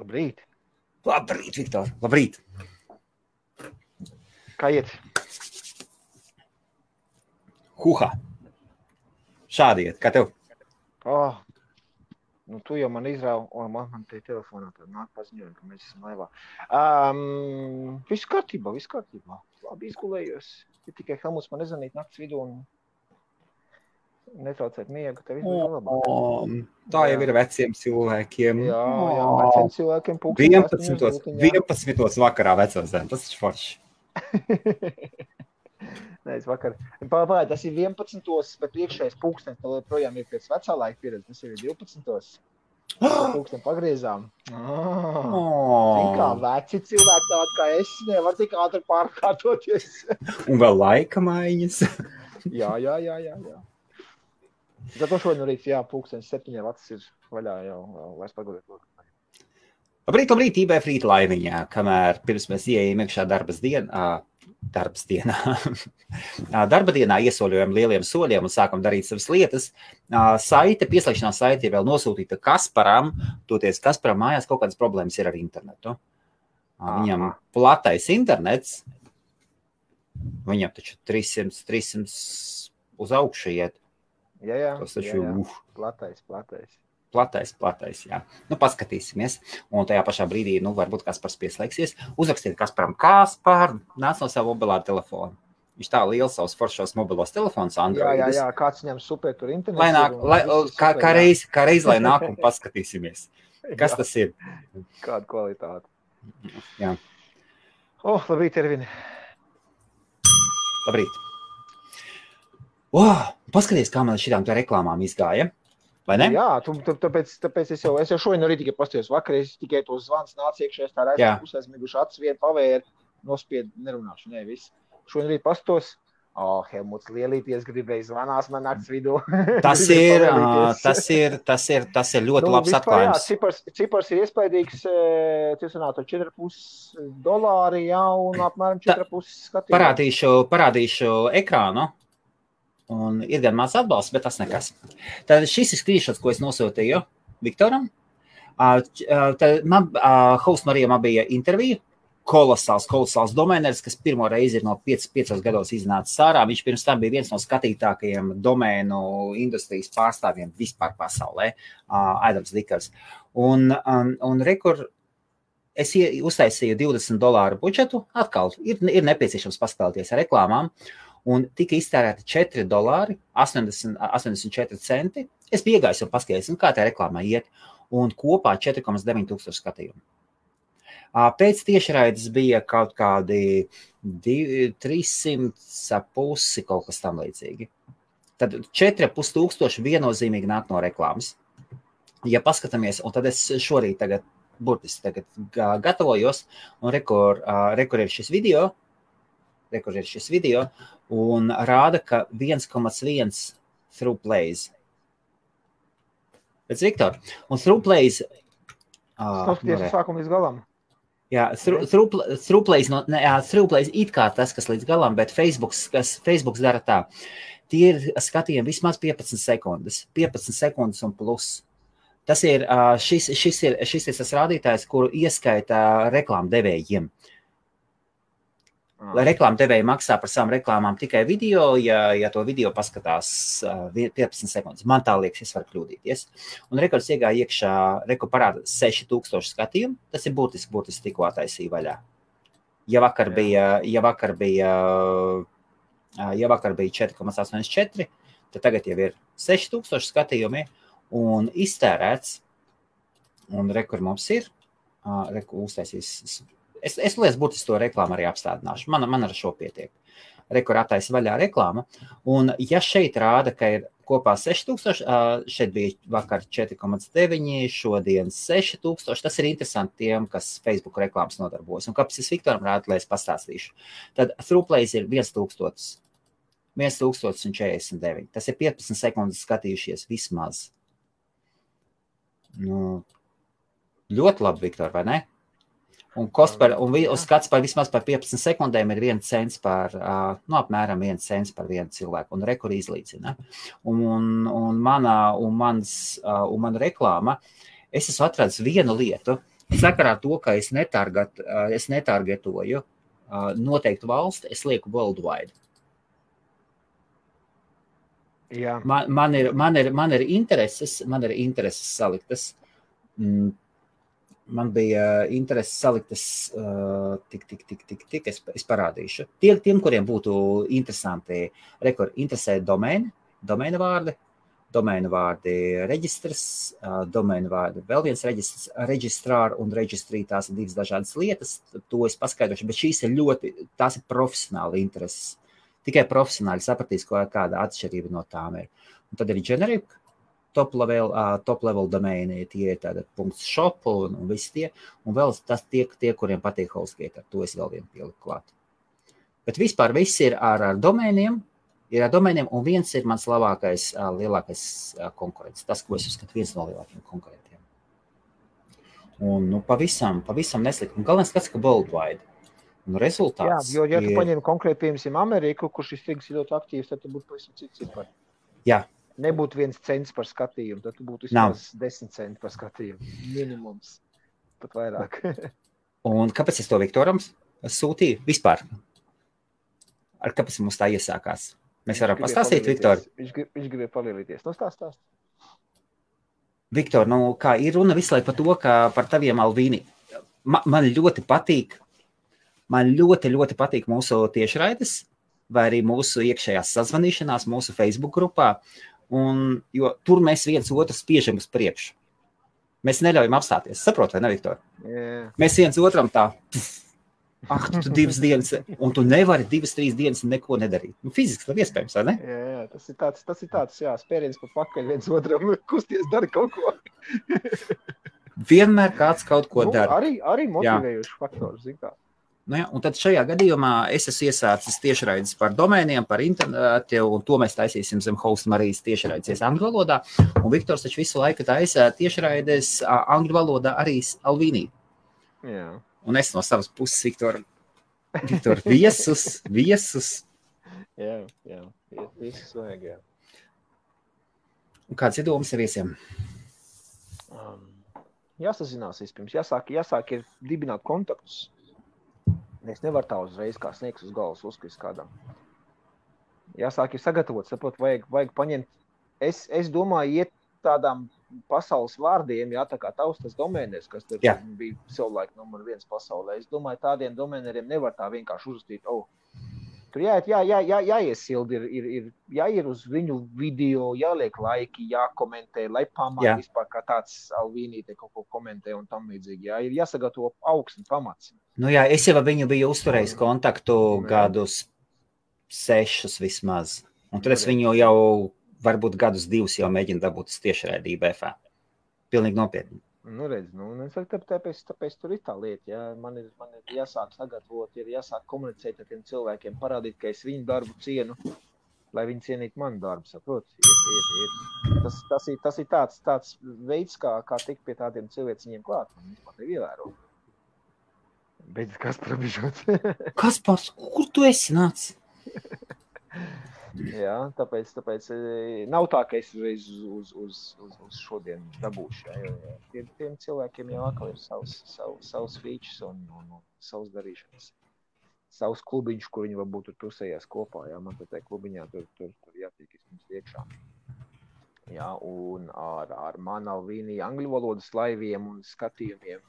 Labrīt. Labrīt, Viktor. Labrīt. Kā iet? Huha. Šādi iet. Kā tev? Nu tu jau man izrāvi, man te telefonā tad nāk paziņojumi, ka mēs esam laivā. Viss kārtībā. Labi izgulējos. Ir tikai Helmuts man nezvanīt nakts vidū un netraucēt miegu. Tev izbija labāk. Tā jau ir veciem cilvēkiem. Jā, veciem cilvēkiem 11 vakarā vecozēm. Tas ir forši. Nē, es vakar. Pagāj, tas ir 11, bet priekšējais pulkstenis projām ir pēc vecā laika pieredze. Tas ir 12. Pulksteni pagriezām. Zin kā, veci cilvēki tādi kā es, nevar tik ātri pārkārtoties. Un vēl laika maiņas. Jā. Tad to šodien rīt, pulkstenis 7 vacis ir vaļā jau vairs pagulēt. Labrīt, IBF rīta laimiņā, kamēr pirms mēs ieejam iekšā darba dienā iesoļojam lieliem soļiem un sākam darīt savas lietas. Pieslēgšanās saite ir vēl nosūtīta Kasparam, toties Kasparam mājās kaut kādas problēmas ir ar internetu. Viņam platais internets, viņam taču 300 uz augšu iet. Jā. Tas taču, Platais. Jā. Nu, paskatīsimies. Un tajā pašā brīdī, varbūt Kaspars pieslēgsies. Uzrakstiet Kasparam, Kaspar, nāc no savu mobilā telefonu. Viņš tā liels savus foršos mobilos telefonus Androidus. Jā, kāds viņam super tur internets. Kā reiz, lai nāk un paskatīsimies. Kas tas ir? Kāda kvalitāte. Jā. Labrīt, Ervini. Labrīt. Paskaties, kā man šitām tā reklāmām izgāja. Vai ne? Jā, tāpēc es jau šodien arī tikai pastījos vakar, es tikai to zvans nāc iekšējās tā raidījuma pusēzmiguši acis vienu pavēru, nospied, nerunāšu, viss. Šodien arī pastos, Helmuts lielīties gribēja zvanās man nakts vidū. Tas ir ļoti labs atklājums. Cipars ir iespaidīgs, $4,5 un apmēram 4,5 skatījumi. Parādīšu ekrānu. Un ir gan maz atbalsts, bet tas nekas. Tad šis ir screenshots, ko es nosūtīju Viktoram. Tad Host Marijam bija intervija. Kolosāls domēneris, kas pirmo reizi ir no 5 gados iznācis ārā. Viņš pirms tam bija viens no skatītākajiem domēnu industrijas pārstāvjiem vispār pasaulē. Adams Dikers. Un rekur, es uztaisīju $20 budžetu. Atkal ir nepieciešams paskatīties ar reklāmām. Un tika iztērēti $4.84. Es biju iegājis un paskatījos, kā tā reklāmā iet, un kopā 4,9 tūkstoši skatījumu. Pēc tiešraides bija kaut kādi 300,5 kaut kas tam līdzīgi. Tad 4,5 tūkstoši viennozīmīgi nāk no reklāmas. Ja paskatāmies, un tad es šorīt burtiski gatavojos, un rekur ir šis video, un rāda, ka 1,1 through plays. Pēc Viktor. Un through plays... Paskaties sākumu līdz galam. Jā, through plays it kā tas, kas līdz galam, bet Facebooks dara tā. Tie ir skatījumi vismaz 15 sekundes. 15 sekundes un plus. Tas ir, šis ir tas rādītājs, kuru ieskaita reklāmdevējiem. Reklāmdevēji maksā par savām reklāmām tikai video, ja to video paskatās 15 sekundes. Man tā liekas, es varu kļūdīties. Un rekords iegāja iekšā, parāda 6,000 skatījumu. Tas ir būtiski tikko attaisīja vaļā. Ja vakar bija 4,84, tad tagad jau ir 6,000 skatījumi un iztērēts. Un rekur mums ir, uztaisīs. Es liekas, būtiski to reklāmu arī apstādināšu. Man ar šo pietiek. Rekur attaisa vaļā reklāma. Un ja šeit rāda, ka ir kopā 6,000, šeit bija vakar 4,9, šodien 6,000, tas ir interesanti tiem, kas Facebook reklāmas nodarbojas. Un kāpēc es Viktoram rādu, lai es pastāstīšu. Tad throughplays ir 1,049. Tas ir 15 sekundes skatījušies vismaz. Ļoti labi, Viktor, vai ne? Un skats par vismaz par 15 sekundēm ir 1 cents apmēram 1 cents par vienu cilvēku, un rekur izlīdzina. Un mana reklāma, es esmu atradis vienu lietu, sakarā to, ka es netargetoju noteiktu valsti, es lieku worldwide. Jā. Man ir intereses saliktas. Man bija intereses saliktas es parādīšu. Tiem, kuriem būtu interesanti, interesē domēna vārdi reģistrs, domēna vārdi vēl viens reģistrs, reģistrāri un reģistrī, tās ir divas dažādas lietas, to es paskaidrošu, bet šīs ir tās ir profesionāli intereses. Tikai profesionāli sapratīs, kāda atšķirība no tām ir. Un tad ir generic, top level domēni, tie ir tāda .shop un visi tie, un vēl tas tie, kuriem patīk HostGator, to es vēl vienu pieliku klāt. Bet vispār viss ir ar domēniem, un viens ir mans lielākais konkurents, tas, ko es uzskatu viens no lielākiem konkurentiem. Un pavisam neslikt, un galvenais skats, ka worldwide. Un rezultāts jā, jo, ja tu paņem konkrēti, piemēram, Ameriku, kur šis tirgus ir ļoti aktīvs, tad tu būtu pavisam cits cipari. Jā. Nebūtu 1 cents par skatījumu, tad tu būtu vismaz 10 centi par skatījumu. Minimums, pat vairāk. Un kāpēc es to Viktoram sūtīju? Vispār. Kāpēc mums tā iesākās? Mēs varam pastāstīt, Viktor? Viņš gribēja palielīties. Stāst. Viktor, kā ir runa visu laiku par to, ka par taviem Alvīni. Man ļoti patīk mūsu tiešraides, vai arī mūsu iekšējās sazvanīšanās, mūsu Facebook grupā, jo tur mēs viens otru spiežam uz priekšu. Mēs neļaujam apstāties. Saprot, vai ne, Viktor? Yeah. Mēs viens otram tā, tu 2 dienas, un tu nevari 2-3 dienas neko nedarīt. Fiziski nav iespējams, vai ne? Jā, tas ir tāds, spēriens pa pakaļ viens otram, kusties, dari kaut ko. Vienmēr kāds kaut ko dara. Arī motivējuši faktori, zin kā. Un tad šajā gadījumā es esmu iesācis tiešraides par domēniem, par internetu, un to mēs taisīsim zem Hosta Marijas tiešraides angļu valodā. Un Viktors taču visu laiku taisa tiešraides angļu valodā arī Alvīnī. Jā. Un es no savas puses, Viktor, viesus. Jā, viesus vajag, jā. Un kāds ir domas ar viesiem? Jāsazinās vispirms, jāsāk ir dibināt kontaktus. Es nevaru tā uzreiz kā sniegs uz galvas uzkrist kādam. Jāsāk ir sagatavot, sapot, vajag paņemt. Es domāju, iet tādām pasaules vārdiem, tā kā taustas domēnēs, kas tur bija savulaik numur 1 pasaulē. Es domāju, tādiem domēneriem nevar tā vienkārši uzrakstīt. Tur jāiesildi, jāiet uz viņu video, jāliek laiki, jākomentē, lai pamāt vispār kā tāds Alvīnī te kaut ko komentē un tam līdzīgi. Ir jāsagatavo augsts pamats. Es jau viņu biju uzturējis kontaktu gadus 6 vismaz. Un tad es viņu jau varbūt gadus 2 jau mēģinu dabūt tiešraidī BFA. Pilnīgi nopietni. Tāpēc tur ir tā lieta. Man ir jāsāk sagatavot, ir jāsāk komunicēt ar tiem cilvēkiem, parādīt, ka es viņu darbu cienu, lai viņi cienītu manu darbu, saprot? Tas ir tāds veids, kā tikt pie tādiem cilvēciņiem klāt. Viņš man tev ievēro. Beidz Kaspar bišot. Kaspar, kur tu esi nāc? Jā, tāpēc nav tā, ka es uzreiz uz šodien dabūšu. Tiem cilvēkiem jau atkal ir savs features un savs darīšanas. Savs klubiņš, kur viņi varbūt tur tusējās kopā. Man tā klubiņā tur jātiek izmums iekšā. Jā, un ar manu Alvīnī angļu valodas laiviem un skatījumiem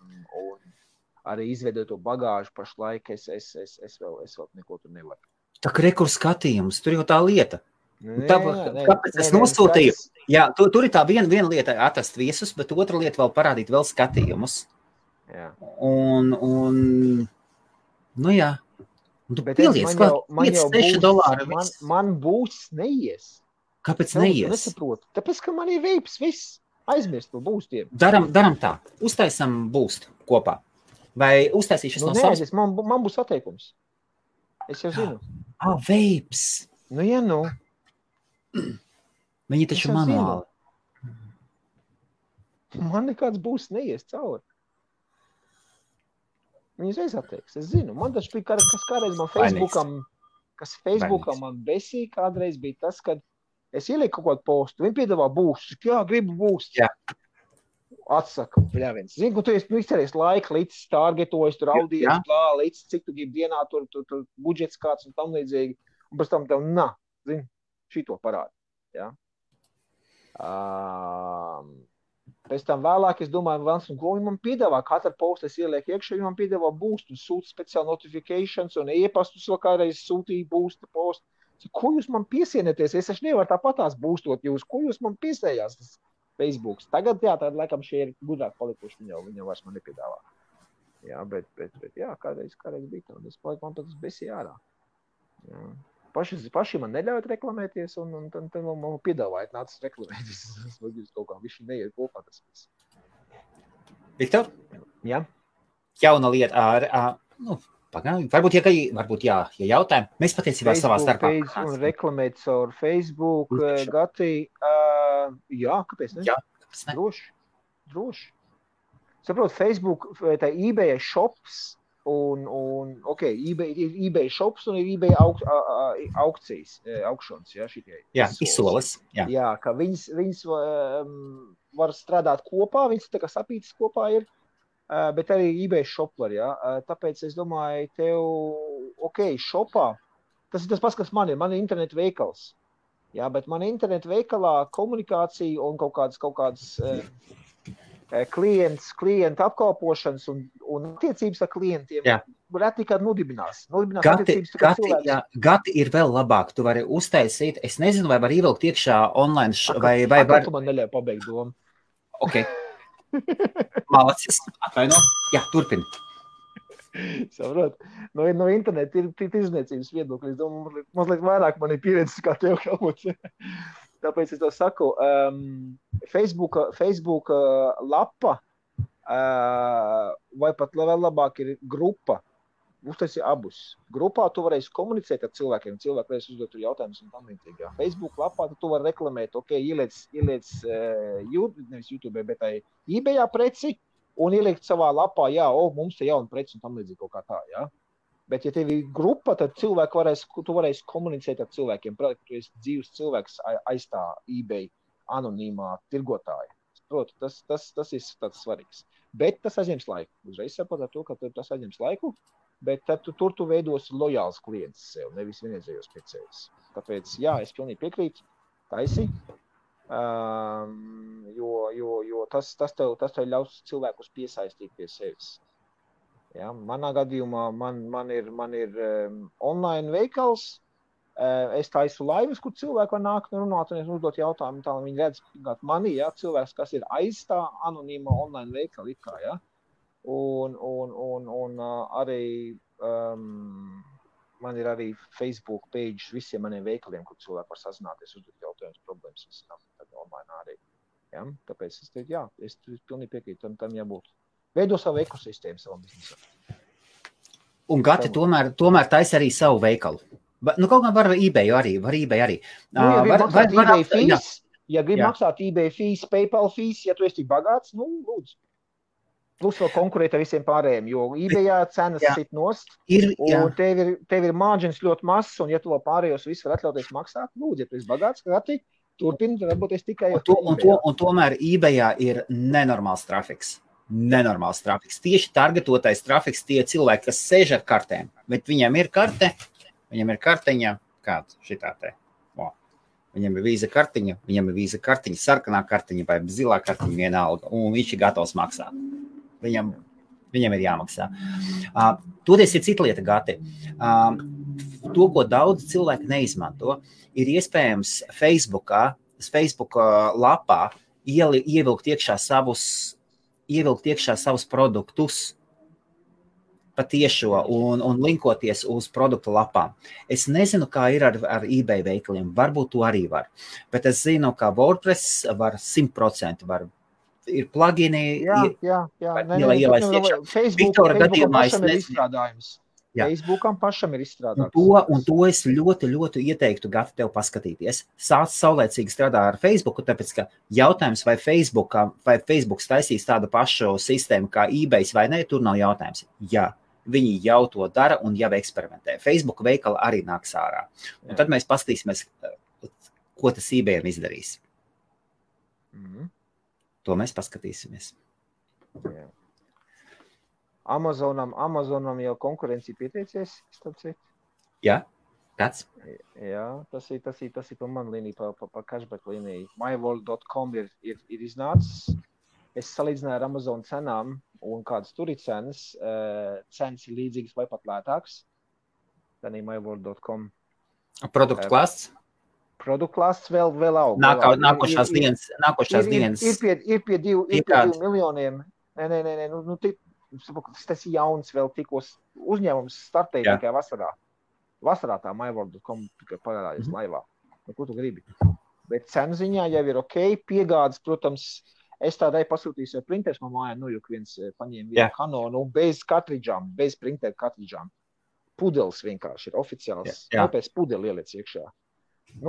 un arī izveidoto bagāžu pašlaik es vēl neko tur nevaru. Tā kā rekur skatījums, tur jau tā lieta. Kāpēc es nosūtīju? Jā, tur ir tā viena lieta atrast viesus, bet otra lieta vēl parādīt vēl skatījumus. Jā. Un jā. Un tu pieliec klāt $5-6. Man būs neies. Kāpēc neies? Nesaprotu. Tāpēc, ka man ir veips viss. Aizmirst par būstiem. Daram tā. Uztaisam būstu kopā. Vai uztaisīšas no savas? Man būs atteikums. Es jau zinu. Veips. Viņi taču manuāli. Man nekāds būs neies cauri. Viņi uzreiz atteiks. Es zinu. Man taču bija kas kādreiz man Facebookam man besīja kādreiz bija tas, kad es ielieku kaut kādu postu. Viņi piedāvā būstu. Jā, gribu būstu. Jā. Atsaka, bļāviens. Zinu, tu esi izcerējis laika, līdz targetojis, tur audies, līdz cik tu gribi dienā, tur budžets kāds un tam līdzīgi. Un pēc tam tev, zini, šito parādi. Ja? Pēc tam vēlāk, es domāju, ko viņi man piedāvā. Katra posta es ielieku iekšā, viņi man piedāvā boost un sūta speciāli notifications un e-pastus vēl kādreiz sūtīja boosta postu. Ko jūs man piesienieties? Es taču nevaru tāpatās boostot jūs. Ko jūs man piesējās? Tas Facebooks. Tagad, jā, tad laikam šie ir gudrāk palikuši, viņa vairs man nepiedāvā. Jā, bet jā, kādreiz bija tā, un es paliku, man pat tas besīja ārā. Jā. Paši man neļaujat reklamēties, un tad man piedāvājat nācis reklamēties. Es kaut kā viši neiet kopā tas viss. Viktor? Jā? Jauna lieta varbūt, ja jautājumi, mēs patiesībā savā starpā. Un reklamēt caur Facebook, Gati, jā, kāpēc ne? Jā, droši. Saprot, Facebook, tā eBay shops eBay shops un ir eBay aukcijas, aukšanas, jā, šitie. Jā, izsoles, jā. Jā, ka viņas var strādāt kopā, viņas tā kā sapītas kopā ir. Bet arī eBay shop var, jā. Tāpēc es domāju, tev, shopā, tas ir tas pats, kas man ir internetu veikals. Jā, bet man internetu veikalā komunikācija un kaut kādas klienta apkalpošanas un attiecības ar klientiem reti kād nodibinās. Gati ir vēl labāk. Tu vari uztaisīt, es nezinu, vai var ievilkt iekšā online, vai var... Tu man neļauj pabeigt domu. Ok. Malacis, atvaino. Jā, turpini. Saprot, no interneta ir tirzniecības viedokļi. Es domāju, mazliet vairāk man ir pieredzes kā tev kaut. Tāpēc es to saku, Facebook lapa vai pat vēl labāk ir grupa. Uztaisi abus. Grupā tu varēsi komunicēt ar cilvēkiem, cilvēki varēs uzdot jautājumus un tam līdzīgi. Facebook lapā tu vari reklamēt, ieliec nevis YouTube, bet eBayā preci un ieliekt savā lapā, mums te jauna preci un tam līdzīgi kaut kā tā, jā. Bet ja tev ir grupa, tad tu varēsi komunicēt ar cilvēkiem. Prāt, ka tu esi dzīves cilvēks aiz tā eBay anonīmā tirgotāja. Proti, tas ir tāds svarīgs. Bet tas aizņems laiku. Uzreiz saprot ar to, ka tas aizņems laiku. Bet tad tu veidosi lojāls klients sev, nevis vienreizējos pircējus. Tāpēc, jā, es pilnīgi piekrītu, taisi, jo tas tev ļaus cilvēkus piesaistīt pie sevis. Ja, manā gadījumā man ir online veikals, es taisu laivas, kur cilvēki var nākt un runāt un uzdot jautājumu, tā viņi redz mani, ja, cilvēks, kas ir aiz tā anonīma online veikala ikā, ja. Un arī man ir arī Facebook page visiem maniem veikaliem, kur cilvēki var sazināties, uzdot jautājumus, problēmas, visam online arī. Ja? Tāpēc es teicu, jā, es pilnīgi piekrītu, tam jābūt. Veido savu ekosistēmu savam biznesam. Un Gati tomēr taisa arī savu veikalu. Kaut kā var eBay arī. Ja grib maksāt eBay fees, PayPal fees, ja tu esi tik bagāts, lūdzu. Plus vēl konkurēt ar visiem pārējiem, jo eBayā cenas sit nost, un tev ir margins ļoti mazs, un ja tu vēl pārējos visu var atļauties maksāt, lūdzu, ja tu esi bagāts, Gati, turpini, varbūt es tikai... Un tomēr eBayā ir nenormāls trafiks. Tieši targetotais trafiks tie cilvēki, kas sēž ar kartēm, bet viņam ir karteņa, kāda šitā te. Viņam ir vīza kartiņa, sarkanā kartiņa vai zilā kartiņa vienalga, un viņš ir gatavs maksāt. Viņam ir jāmaksā. Toties ir cita lieta, Gati. To, ko daudz cilvēki neizmanto, ir iespējams Facebook lapā ievilkt iekšā savus produktus patiešo un linkoties uz produktu lapām. Es nezinu, kā ir ar eBay veikaliem. Varbūt to arī var. Bet es zinu, ka WordPress var 100% var. Ir plugini. Jā. Viktora gadījumā es izstrādājums. Facebookam pašam ir izstrādājums. Un to es ļoti, ļoti ieteiktu, Gati, tev paskatīties. Sāc saulēcīgi strādā ar Facebooku, tāpēc, ka jautājums, vai Facebooks taisīs tādu pašu sistēmu kā eBay vai ne, tur nav jautājums. Jā, viņi jau to dara un jau eksperimentē. Facebook veikala arī nāks ārā. Un tad mēs paskatīsimies, ko tas eBayam izdarīs. To mēs paskatīsimies. Jā. Amazonam jau konkurencija pieteicies, starp citu. Jā, kāds? Jā, tas ir pa man līniju, pa cashback līniju. myworld.com ir iznācis. Es salīdzināju ar Amazon cenām un kādas tur ir cenas. Cenas ir līdzīgas vai pat lētāks. Tad ir myworld.com. Produktu klāsts? Produktu klāsts vēl aug. Nākošās dienas. Ir pie 2 miljoniem. Nē, tas ir jauns vēl tikos uzņēmums startēja tikai vasarā. Vasarā tā myworld.com tikai parādījās laivā. Ko tu gribi? Bet cenu ziņā jau ir ok. Piegādes, protams, es tādai pasūtīju jau printers no mājā, juk viens paņēma vienu Canonu bez kartridžām, bez printeru kartridžām. Pudelis vienkārši ir oficiāls. Pēc pudeli ieliec iekšā.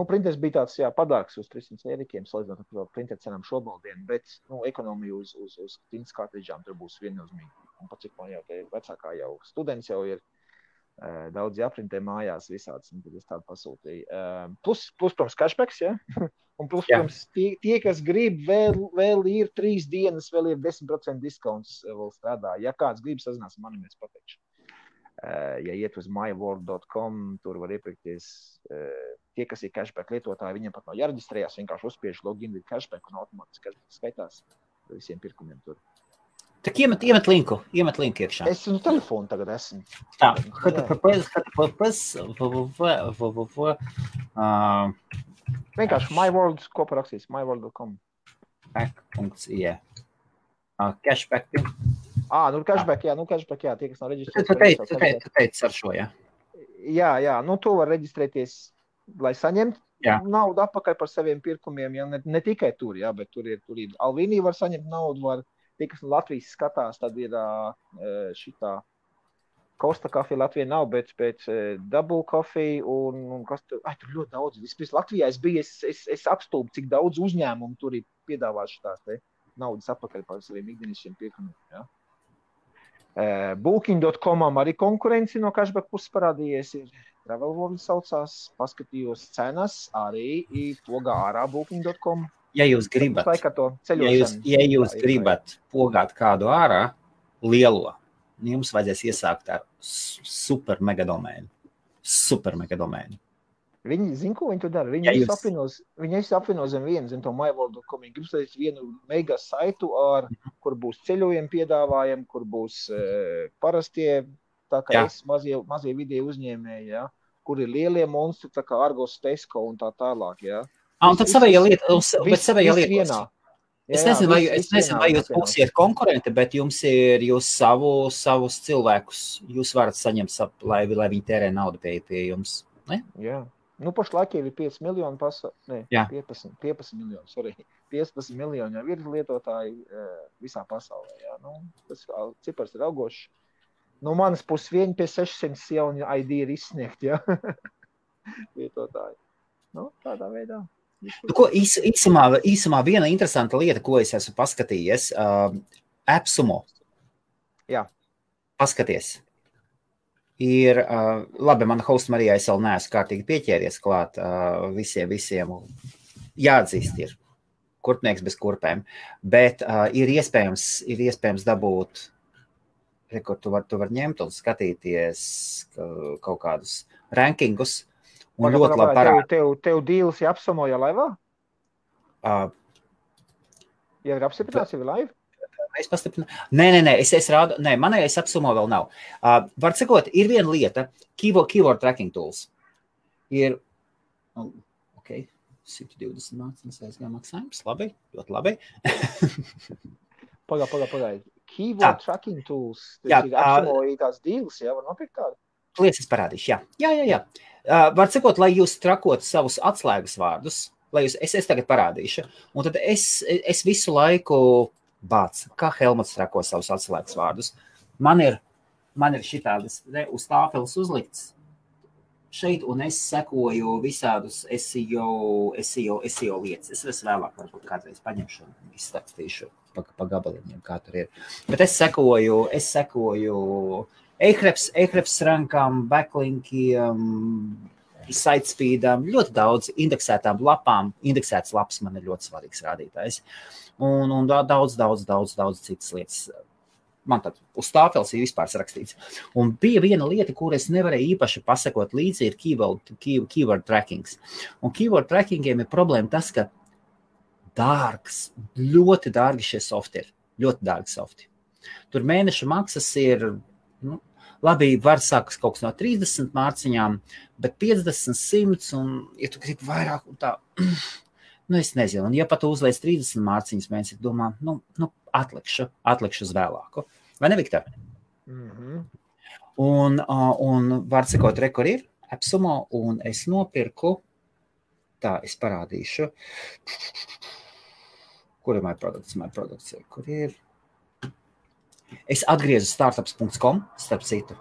Printers bija tāds, padārgs uz 300 eirikiem, salīdzinot ar printeru cenām šobaldien, bet, ekonomija uz tintas kartridžām tur būs viennozīmīgi. Un pat cik man jau vecākā jau students jau ir, daudz jāprintē mājās visāds, un tad es tādu pasūtīju. Plus, protams, cashbacks, ja? Un plus, protams, tie, kas grib, vēl ir 3 dienas, vēl ir 10% discounts vēl strādā. Ja kāds grib sazinās, mani mēs pateikšu. Ja iet uz myworld.com, tur var iepirkties tie, kas ir cashback lietotāji, viņiem pat nav jāreģistrējās, vienkārši uzspiež login with cashback un automātiski cashback skaitās visiem pirkumiem tur. Tak iemet linku iekšā. Es uz telefonu tagad esmu. Tā, vienkārši myworld kopā rakstīs, myworld.com. Back.ie. Cashback. Cashback, tie, kas nav reģistrēties. Tu teici ar šo, jā? Jā, to var reģistrēties, lai saņemtu naudu atpakaļ par saviem pirkumiem, ne tikai tur, bet tur ir Alvīnī var saņemt naudu, tie, kas no Latvijas skatās, tad ir šitā Costa Coffee Latvijā nav, bet Double Coffee un kas tur, tur ļoti daudz. Vispirms Latvijā es biju, es apstulbu, cik daudz uzņēmumu tur ir piedāvājuši tās naudas atpakaļ par saviem ikdienišķiem pirkumiem, jā. Booking.comam arī konkurenci no cashback puses parādījies ir. Travel World saucās, paskatījos cenas, arī pogā ārā Booking.com. Ja jūs gribat pogāt kādu ārā, lielo, jums vajadzēs iesākt ar super mega domēnu. Viņi zina, ko viņi to dara. Viņi apvieno zem vienu, zem to myworld.com. Viņi grib sadīt vienu mega saitu, kur būs ceļojumi piedāvājumi, kur būs parastie, tā kā mazie vidēji uzņēmēji, kur ir lielie monstri, tā kā Argos, Tesco un tā tālāk, Un tad savējā lieta. Es nezinu, vai jūs būsiet konkurenti, bet jums ir jūs savus cilvēkus, jūs varat saņemt, lai viņi tērē naudu pie jums, ne? Jā. Pašlaik jau ir 5 miljoni 15 miljoni, 15 miljoni jau ir lietotāji visā pasaulē, tas cipars ir augošs. No manas puses vieni pie 600 jauni ID ir izsniegt, lietotāji. Tādā veidā. Īsumā viena interesanta lieta, ko es esmu paskatījies, AppSumo. Jā. Paskaties. Ir, labi, mana hosta Marija, es vēl neesmu kārtīgi pieķēries klāt visiem jāatzīst ir kurpnieks bez kurpēm, bet ir iespējams dabūt, kur tu var ņemt un skatīties kaut kādus rankingus un ļoti labi parāda. Tev dīls ir AppSumo jau laivā? Ja ir apstiprināts, jau ir laiva? Es pastiprinu. Nē, es rādu. Nē, manējais AppSumo vēl nav. Var cikot, ir viena lieta, keyword tracking tools. Ir, 120 mācības aizgā maksājums. Labi, ļoti labi. Pagaid. Keyword tracking tools. Tas ir AppSumo tās dīls, var nopirkt tādu? Lietas parādīšu, jā. Var cikot, lai jūs trakotu savus atslēgas vārdus, es tagad parādīšu. Un tad es visu laiku kā Helmuts trako savus atslēgas vārdus. Man ir šitādas uz tāfeles uzlikts šeit, un es sekoju visādus SEO lietas. Es vēlāk varbūt kādreiz paņemšu un izstāstīšu pa gabaliņiem, kā tur ir. Bet es sekoju Ahrefs rankām, backlinkiem, sitespeedam, ļoti daudz indeksētām lapām. Indeksētas lapas man ir ļoti svarīgs rādītājs. Un daudz citas lietas. Man tad uz tāpels ir vispār rakstīts. Un bija viena lieta, kur es nevarēju īpaši pasakot līdzi, ir keyword trackings. Un keyword trackingiem ir problēma tas, ka dārgs, ļoti dārgi šie softi ir. Ļoti dārgi softi. Tur mēneša maksas ir, labi, var sākas kaut kas no 30 mārciņām, bet 50, 100, un ja tu gribi vairāk un tā, es nezinu. Un ja pat uzliec 30 mārciņas mēnesi, domā, atlikšu uz vēlāku. Vai ne, Viktor? Un var sakot, rekur ir AppSumo, un es nopirku, tā, es parādīšu, kur ir my products, kur ir? Es atgriezu startups.com, starp citu,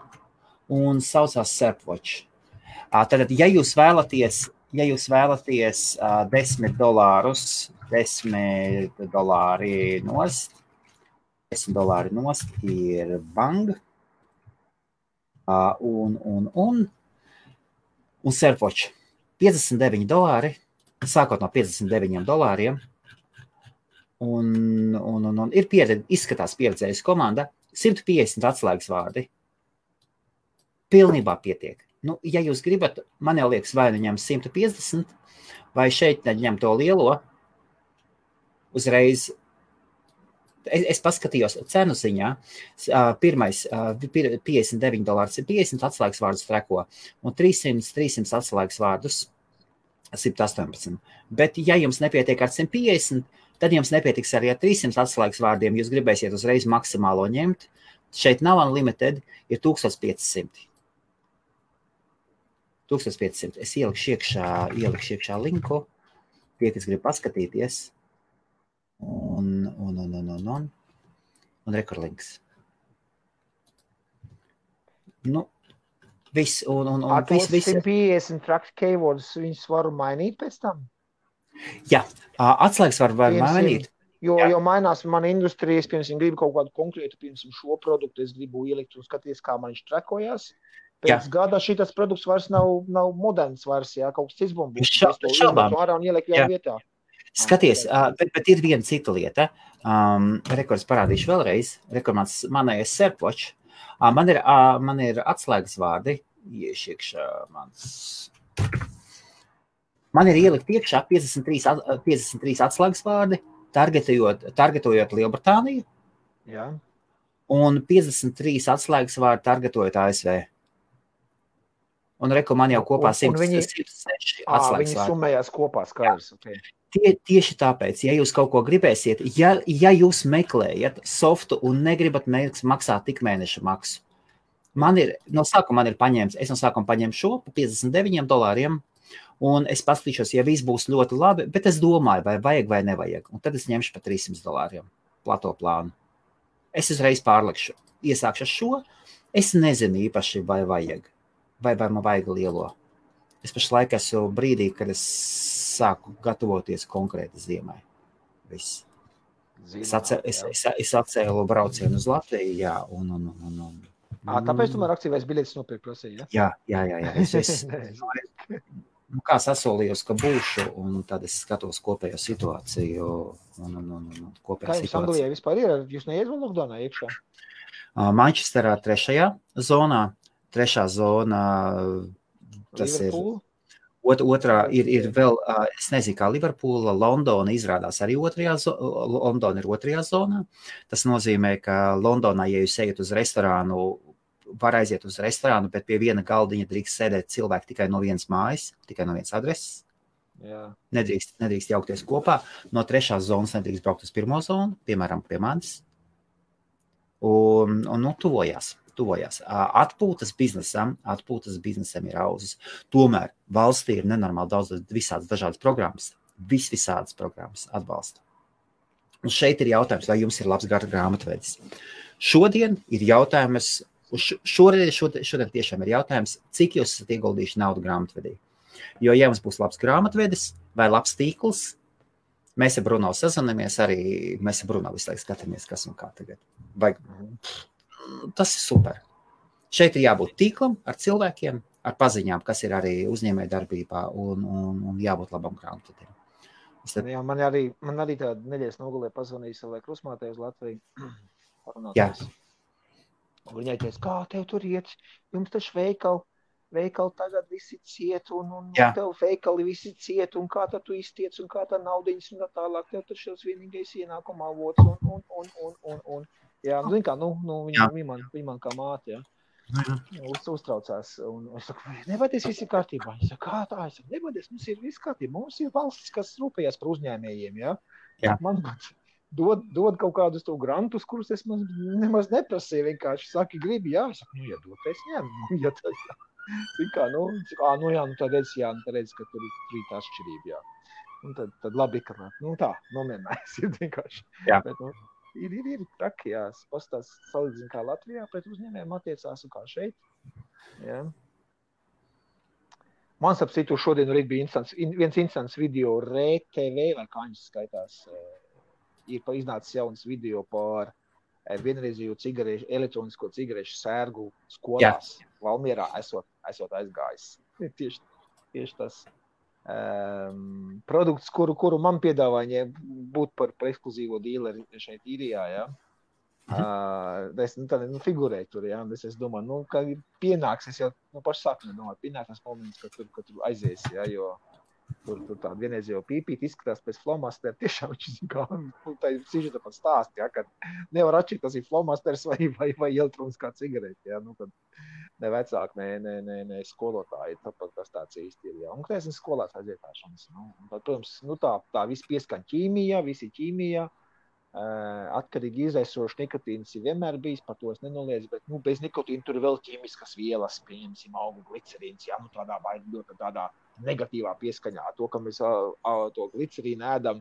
un saucās Serpwatch. Tātad, ja jūs vēlaties $10 nost ir Bang, un Serpwatch $59, sākot no $59, un ir izskatās pieredzējusi komanda, 150 atslēgas vārdi. Pilnībā pietiek. Ja jūs gribat, man jau liekas, vai ņem 150, vai šeit ņem to lielo, uzreiz, es paskatījos cenu ziņā, pirmais $59 ir 50 atslēgas vārdus treko, un 300 atslēgas vārdus 118. Bet, ja jums nepietiek ar 150, tad jums nepietiks arī ar 300 atslēgas vārdiem, jūs gribēsiet uzreiz maksimālo ņemt. Šeit nav unlimited, ir 1500. 1500. Es ielikšu iekšā linku, tie, kas grib paskatīties. Un rekurlinks. Viss. Tos 150 track keywords, viņus varu mainīt pēc tam? Jā, atslēgas var mainīt. Jo mainās mana industrija, es, piemēram, gribu kaut kādu konkrētu, piemēram, šo produktu, es gribu ielikt un skaties, kā man viņš trekojās. Pēc gada šitas produkts vairs nav moderns vairs, kaut kas cits būs. Es to izmetu ārā un ieliku jau vietā. Skaties, bet ir viena cita lieta. Rekords parādīšu vēlreiz. Manējais Serpwatch. Man ir atslēgas vārdi. Iekšā mans... Man ir ielikt iekšā 53 atslēgas vārdi, targetojot Lielbritāniju. Jā. Un 53 atslēgas vārdi targetojot ASV. Un man jau kopā 106 atslēgas vārdi. Viņi summējās kopā, skaidrs. Okay. Tieši tāpēc, ja jūs kaut ko gribēsiet, ja jūs meklējat softu un negribat maksāt tik mēneša maksu, no sākuma paņēmu šo pa $59, un es paskatīšos, ja viss būs ļoti labi, bet es domāju, vai vajag vai nevajag, un tad es ņemšu pa $300 plato plānu. Es uzreiz pārlikšu, iesākšu šo, es nezinu īpaši, vai vajag, vai man vajag lielo. Es pašlaik esmu brīdī, kad es sāku gatavoties konkrēti ziemai. Viss. Es atcēlu braucienu uz Latviju, jā, tāpēc tu man aktīvais biļetes nopirkt prasīja, ja? Jā. Kā sasolījos, ka būšu, un tad es skatos kopējo situāciju. Kā jums Anglijā vispār ir? Jūs neiet vēl lockdownā iekšā? Manchesterā 3. zonā. 3. zona, tas Liverpool? Ir otrā, ir vēl, es nezinu, kā Liverpoola, Londona izrādās arī Londona ir 2. zonā. Tas nozīmē, ka Londonā, ja jūs ejat uz restorānu, var aiziet uz restorānu, bet pie viena galdiņa drīkst sēdēt cilvēki tikai no vienas mājas, tikai no vienas adreses. Jā. Nedrīkst jaukties kopā. No 3. zonas nedrīkst braukt uz 1. zonu, piemēram, pie manis. Un tuvojās. Atpūtas biznesam ir auzas. Tomēr valstī ir nenormāli daudz visādas dažādas programmas. Visādas programmas atbalsta. Un šeit ir jautājums, vai jums ir labs grāmatvedis. Šodien ir jautājums, šodien tiešām ir jautājums, cik jūs esat ieguldījuši naudu grāmatvedī. Jo, ja mums būs labs grāmatvedis vai labs tīkls, mēs ar Bruno sazinamies arī, mēs ar Bruno visu laiku skatāmies, kas un kā tagad. Tas ir super. Šeit ir jābūt tīklam ar cilvēkiem, ar paziņām, kas ir arī uzņēmēja darbībā un jābūt labam grāmatvedējam. Jā, man arī tāda nedēļas nogalē pazvanīja savai krusmātei uz Latviju. Jā. Un viņai teica, kā tev tur iet, jums taču veikali tagad visi ciet, un tev veikali visi ciet, un kā tad tu iztiec, un kā tā naudiņas, un tā tālāk, tev taču šis vienīgais ienākuma avots, un. Jā, zin kā, viņa man kā māte, jā. Uztraucās, un es saku, nevadies, viss ir kārtībā. Es saku, kā tā? Es saku, nevadies, mums ir viss kārtībā. Mums ir valstis, kas rūpējās par uzņēmējiem, jā. Man dod kaut kādus to grantus, kurus es nemaz neprasīju, vienkārši saki, gribi, jā. Es saku, ja dod, es ņemu, ja tas, jā. Zin kā, tad redz, ka tur ir tā atšķirība, jā. Un tad labi, ka, tā, nomierinājies ir vienkārši. Jā. Bet, Ir traki, jā. Pastās salīdzina kā Latvijā pret uzņēmējiem attiecās un kā šeit. Jā. Man ap citu šodien arī bija viens instants video RTV, vai kā viņš skaitās, ir iznācis jauns video par vienreizīgu elektronisko cigarešu sērgu skolās. Jā. Valmierā esot aizgājis. Tieši tas. Produkts, kuru man piedāvāja būt par ekskluzīvo dīleri šeit īrijā, jā. Es figurēju tur, jā, es domāju, ka pienāks, es jau pašu sākumā domāju, pienāks tas moments, ka tur aizies, jā, jo tur tāda vienreiz jau pīpīt izskatās pēc flomastera, tiešām viņš kā, tā ir sižeta pat stāst, jā, ka nevar atšķirt, tas ir flomasters vai elektroniskā cigarete, jā, kad ne vecāki, ne skolotāji, tāpat tas tāds īsti ir, jā. Un, kad esmu skolās aizietāšanas, protams, tā viss pieskaņ ķīmijā, visi ķīmijā, atkarīgi izaisoši nikotīns ir vienmēr bijis, par to es nenoliedzu, bet, bez nikotīna tur ir vēl ķīmiskas vielas, pieņemsim, augu glicerīns, jā, tādā negatīvā pieskaņā, to, ka mēs to glicerīnu ēdam,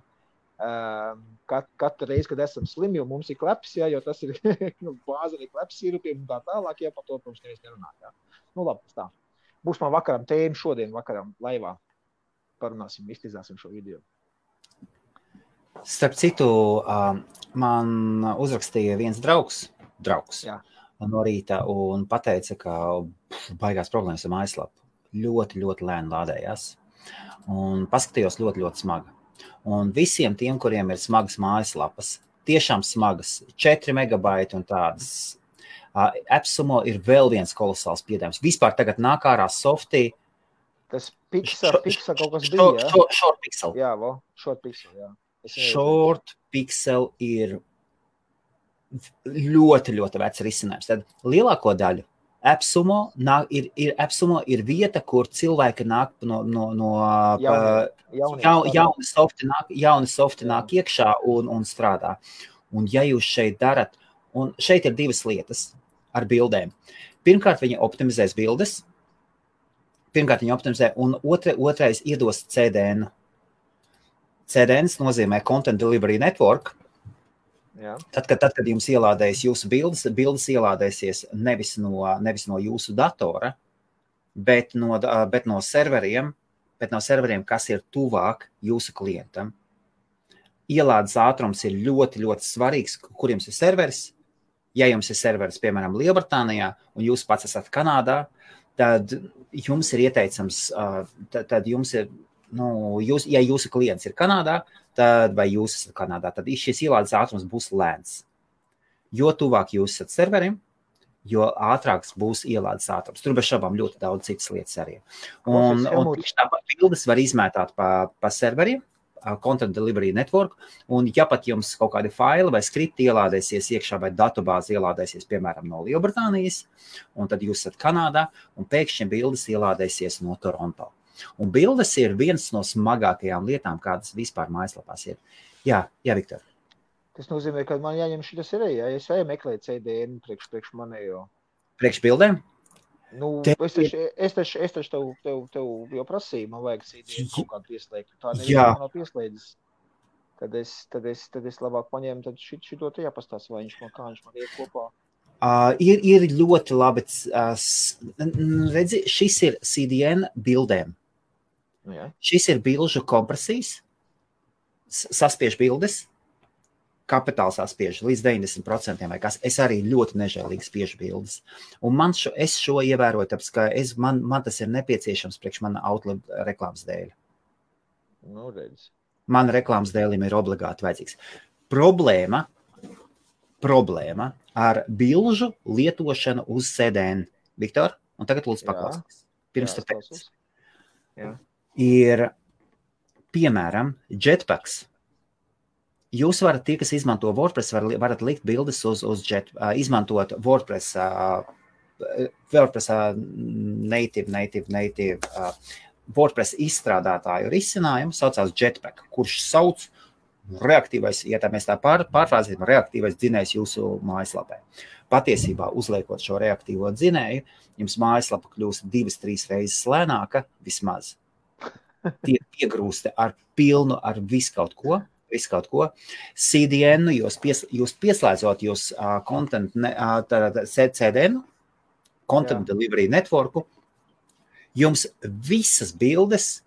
katru reizi, kad esam slimi, jo mums ir kleps, jā, jo tas ir bāzeni kleps sirupiem un tā tālāk, jā, par to, protams, neviens nerunā, jā. Labi, tā. Būs man vakaram tēma šodien, vakaram laivā. Parunāsim, iztizāsim šo video. Starp citu, man uzrakstīja viens draugs jā. No rīta un pateica, ka baigās problēmas ar mājaslapu. Ļoti, ļoti lēni lādējās. Un paskatījos ļoti, ļoti smaga. Un visiem tiem, kuriem ir smagas mājaslapas, tiešām smagas, 4 megabaiti un tādas, AppSumo ir vēl viens kolosāls piedāvājums. Vispār tagad nāk ārā softī. Tas Pixel kaut kas bija, jā? Short Pixel. Jā, Short Pixel, jā. Short Pixel ir ļoti, ļoti vecs risinājums. Tad lielāko daļu AppSumo ir vieta, kur cilvēki nāk jauni softi nāk iekšā un strādā. Un ja jūs šeit darat, un šeit ir divas lietas ar bildēm. Pirmkārt, viņi optimizēs bildes. Un otrais iedos CDN. CDNs nozīmē Content Delivery Network. Jā. Tad, kad jums ielādējas jūsu bildes ielādēsies nevis no jūsu datora, bet no serveriem, kas ir tuvāk jūsu klientam. Ielādes ātrums ir ļoti, ļoti svarīgs, kur jums ir serveris. Ja jums ir serveris, piemēram, Lielbritānijā, un jūs pats esat Kanādā, tad jums ir ieteicams, tad jums ir, ja jūsu klients ir Kanādā, vai jūs esat Kanādā, tad šis ielādes ātrums būs lēns. Jo tuvāk jūs esat serverim, jo ātrāks būs ielādes ātrums. Tur bez šaubām ļoti daudz citas lietas arī. Un tieši tāpat bildes var izmētāt pa serveriem, Content Delivery Network, un ja pat jums kaut kādi faili vai skripti ielādēsies iekšā vai datubāzi ielādēsies, piemēram, no Lielbritānijas, un tad jūs esat Kanādā, un pēkšņi bildes ielādēsies no Toronto. Un bildes ir viens no smagākajām lietām, kādas vispār mājaslapās ir. Jā, Viktor. Tas nozīmē, ka man jāņem šitas ir, ja es meklēju CDN priekš manējo. Priekš bildēm? Es taču tev jau prasīju, man vajag CDN kaut kādu pieslēgt. Tā nevienā nav pieslēdzis. Tad es labāk paņēmu, tad šito te jāpastās, vai viņš man iet kopā. Ir ļoti labi, redzi, šis ir CDN bildēm. Jā. Šis ir bilžu kompresijas, saspiež bildes, kapitāls spiež līdz 90% vai kas. Es arī ļoti nežēlīgi spiežu bildes. Un es šo ievēroju, tāpēc, ka man tas ir nepieciešams priekš mana Outlook reklāmas dēļ. Nu, redz. Man reklāmas dēļim ir obligāti vajadzīgs. Problēma ar bilžu lietošanu uz CDN. Viktor, un tagad lūdzu paklausīs. Pirms tu teici. Ir, piemēram, Jetpacks. Jūs varat, tie, kas izmanto WordPress, varat likt bildes uz izmantot WordPress native WordPress izstrādātāju risinājumu, saucās Jetpack, kurš sauc reaktīvais, ja tā mēs tā pārfrāzēsim, reaktīvais dzinējs jūsu mājaslapē. Patiesībā, uzliekot šo reaktīvo dzinēju, jums mājaslapa kļūst 2-3 reizes lēnāka, vismaz. Tie piegrūsti ar pilnu, ar visu kaut ko. CDN, jūs pieslēdzot jūs CDN, Content Delivery Networku, jums visas bildes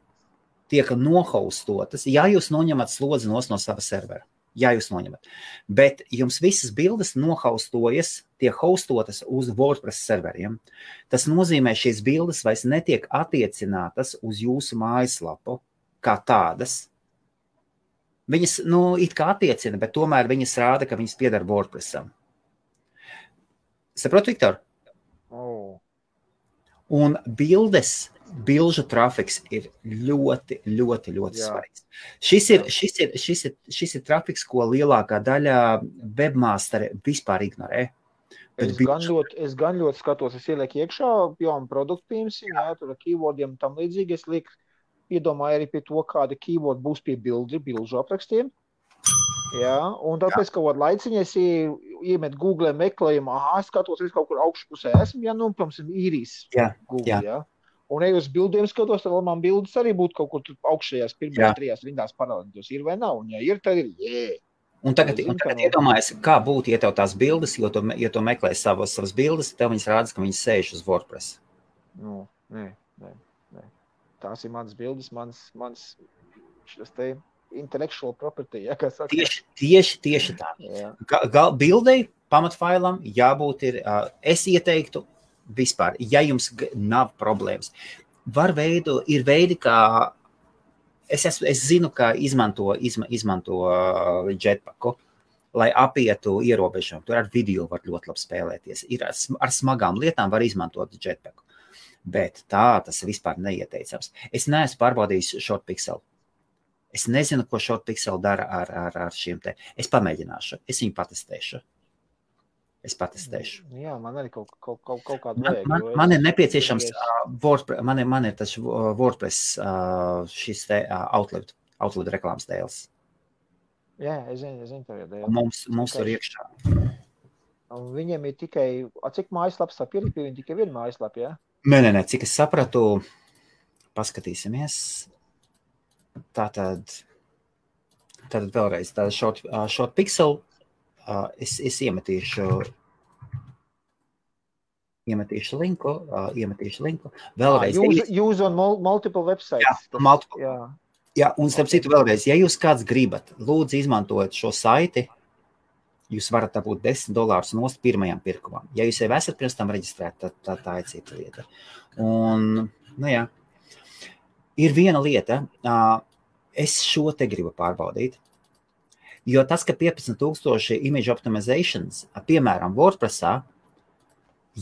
tiek nohostotas, ja jūs noņemat slodzi no sava servera. Ja jūs noņemat. Bet jums visas bildes nohostojas, tiek hostotas uz WordPress serveriem. Tas nozīmē, šīs bildes vairs netiek attiecinātas uz jūsu mājaslapu kā tādas. Viņas, it kā attiecina, bet tomēr viņas rāda, ka viņas piedara WordPressam. Saprot, Viktor? Un bilžu trafiks ir ļoti, ļoti, ļoti svarīgs. Šis ir trafiks, ko lielākā daļa webmasteri vispār ignorē. Es gan ļoti skatos, es ielieku iekšā jaunu produktu, piemēram, tur ar keywordiem tam līdzīgi, es lieku iedomāju arī pie to, kāda keyword būs pie bilžu aprakstiem. Jā, un tāpēc kaut kādu laiciņu es iemet Google meklējumu, skatos, es kaut kur augšpusē esmu, protams, īrijas Google, jā. Un ja uz bildiem skatos, tad man bildes arī būtu kaut kur augšējās pirmajās 3 rindās parādītos. Ir vai nav? Un ja ir, tad ir, Un tagad iedomājies, kā būtu, ja tev tās bildes, jo tu meklē savas bildes, tev viņas rādas, ka viņas sēž uz WordPress. Nē. Tās ir manas bildes, mans šis te intellectual property, ja, kā saka. Tieši tā. Bildei, pamatfailam jābūt ir, es ieteiktu vispār, ja jums nav problēmas. Ir veidi, kā, es zinu, kā izmanto Jetpacku, lai apietu ierobežumu. Tur ar video var ļoti labi spēlēties. Ar smagām lietām var izmantot Jetpacku. Bet tas vispār neieteicams. Es neesmu pārbaudījis ShortPixel. Es nezinu, ko ShortPixel dara ar šiem te. Es pamēģināšu. Es viņu patestēšu. Jā, man arī kaut kādu vajag. Man ir nepieciešams WordPress, man ir tas WordPress šis te Outlook reklāmas dēls. Jā, es zinu tev jau dēļ. Mums tur iekšā. Un viņiem ir tikai, cik mājaslaps tā ir? Viņi tikai viena mājaslapa, jā? Nē, cik es sapratu, paskatīsimies. Tātad vēlreiz, ShortPixel, es iemetīšu linku. Vēlreiz. Use on multiple websites. Jā, un starp citu vēlreiz, ja jūs kāds gribat, lūdzu izmantojot šo saiti, jūs varat dabūt $10 nost pirmajam pirkumam. Ja jūs jau esat pirms tam reģistrēti, tad tā ir cita lieta. Un, jā, ir viena lieta, es šo te gribu pārbaudīt, jo tas, ka 15,000 image optimizations, piemēram, WordPressā,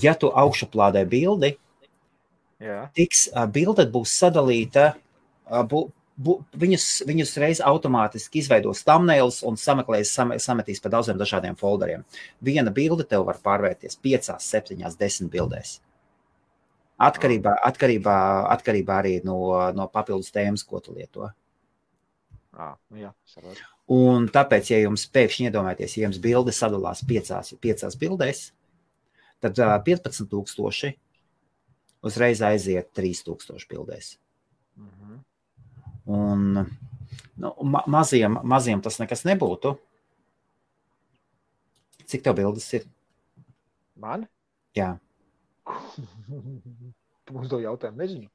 ja tu augšuplādē bildi, bilde būs sadalīta, viņus reiz automātiski izveidos thumbnails un sametīs pa daudziem dažādiem folderiem. Viena bilde tev var pārvērties 5, 7, 10 bildēs. Atkarībā arī no papildus tēmas, ko tu lieto. Jā, sapratu. Un tāpēc, ja jums pēkšņi iedomājaties, ja jums bilde sadalās 5 bildēs, tad 15,000 uzreiz aiziet 3,000 bildēs. Un maziem tas nekas nebūtu. Cik tev bildes ir? Man? Jā. Tu mums to jautājumu nezinu.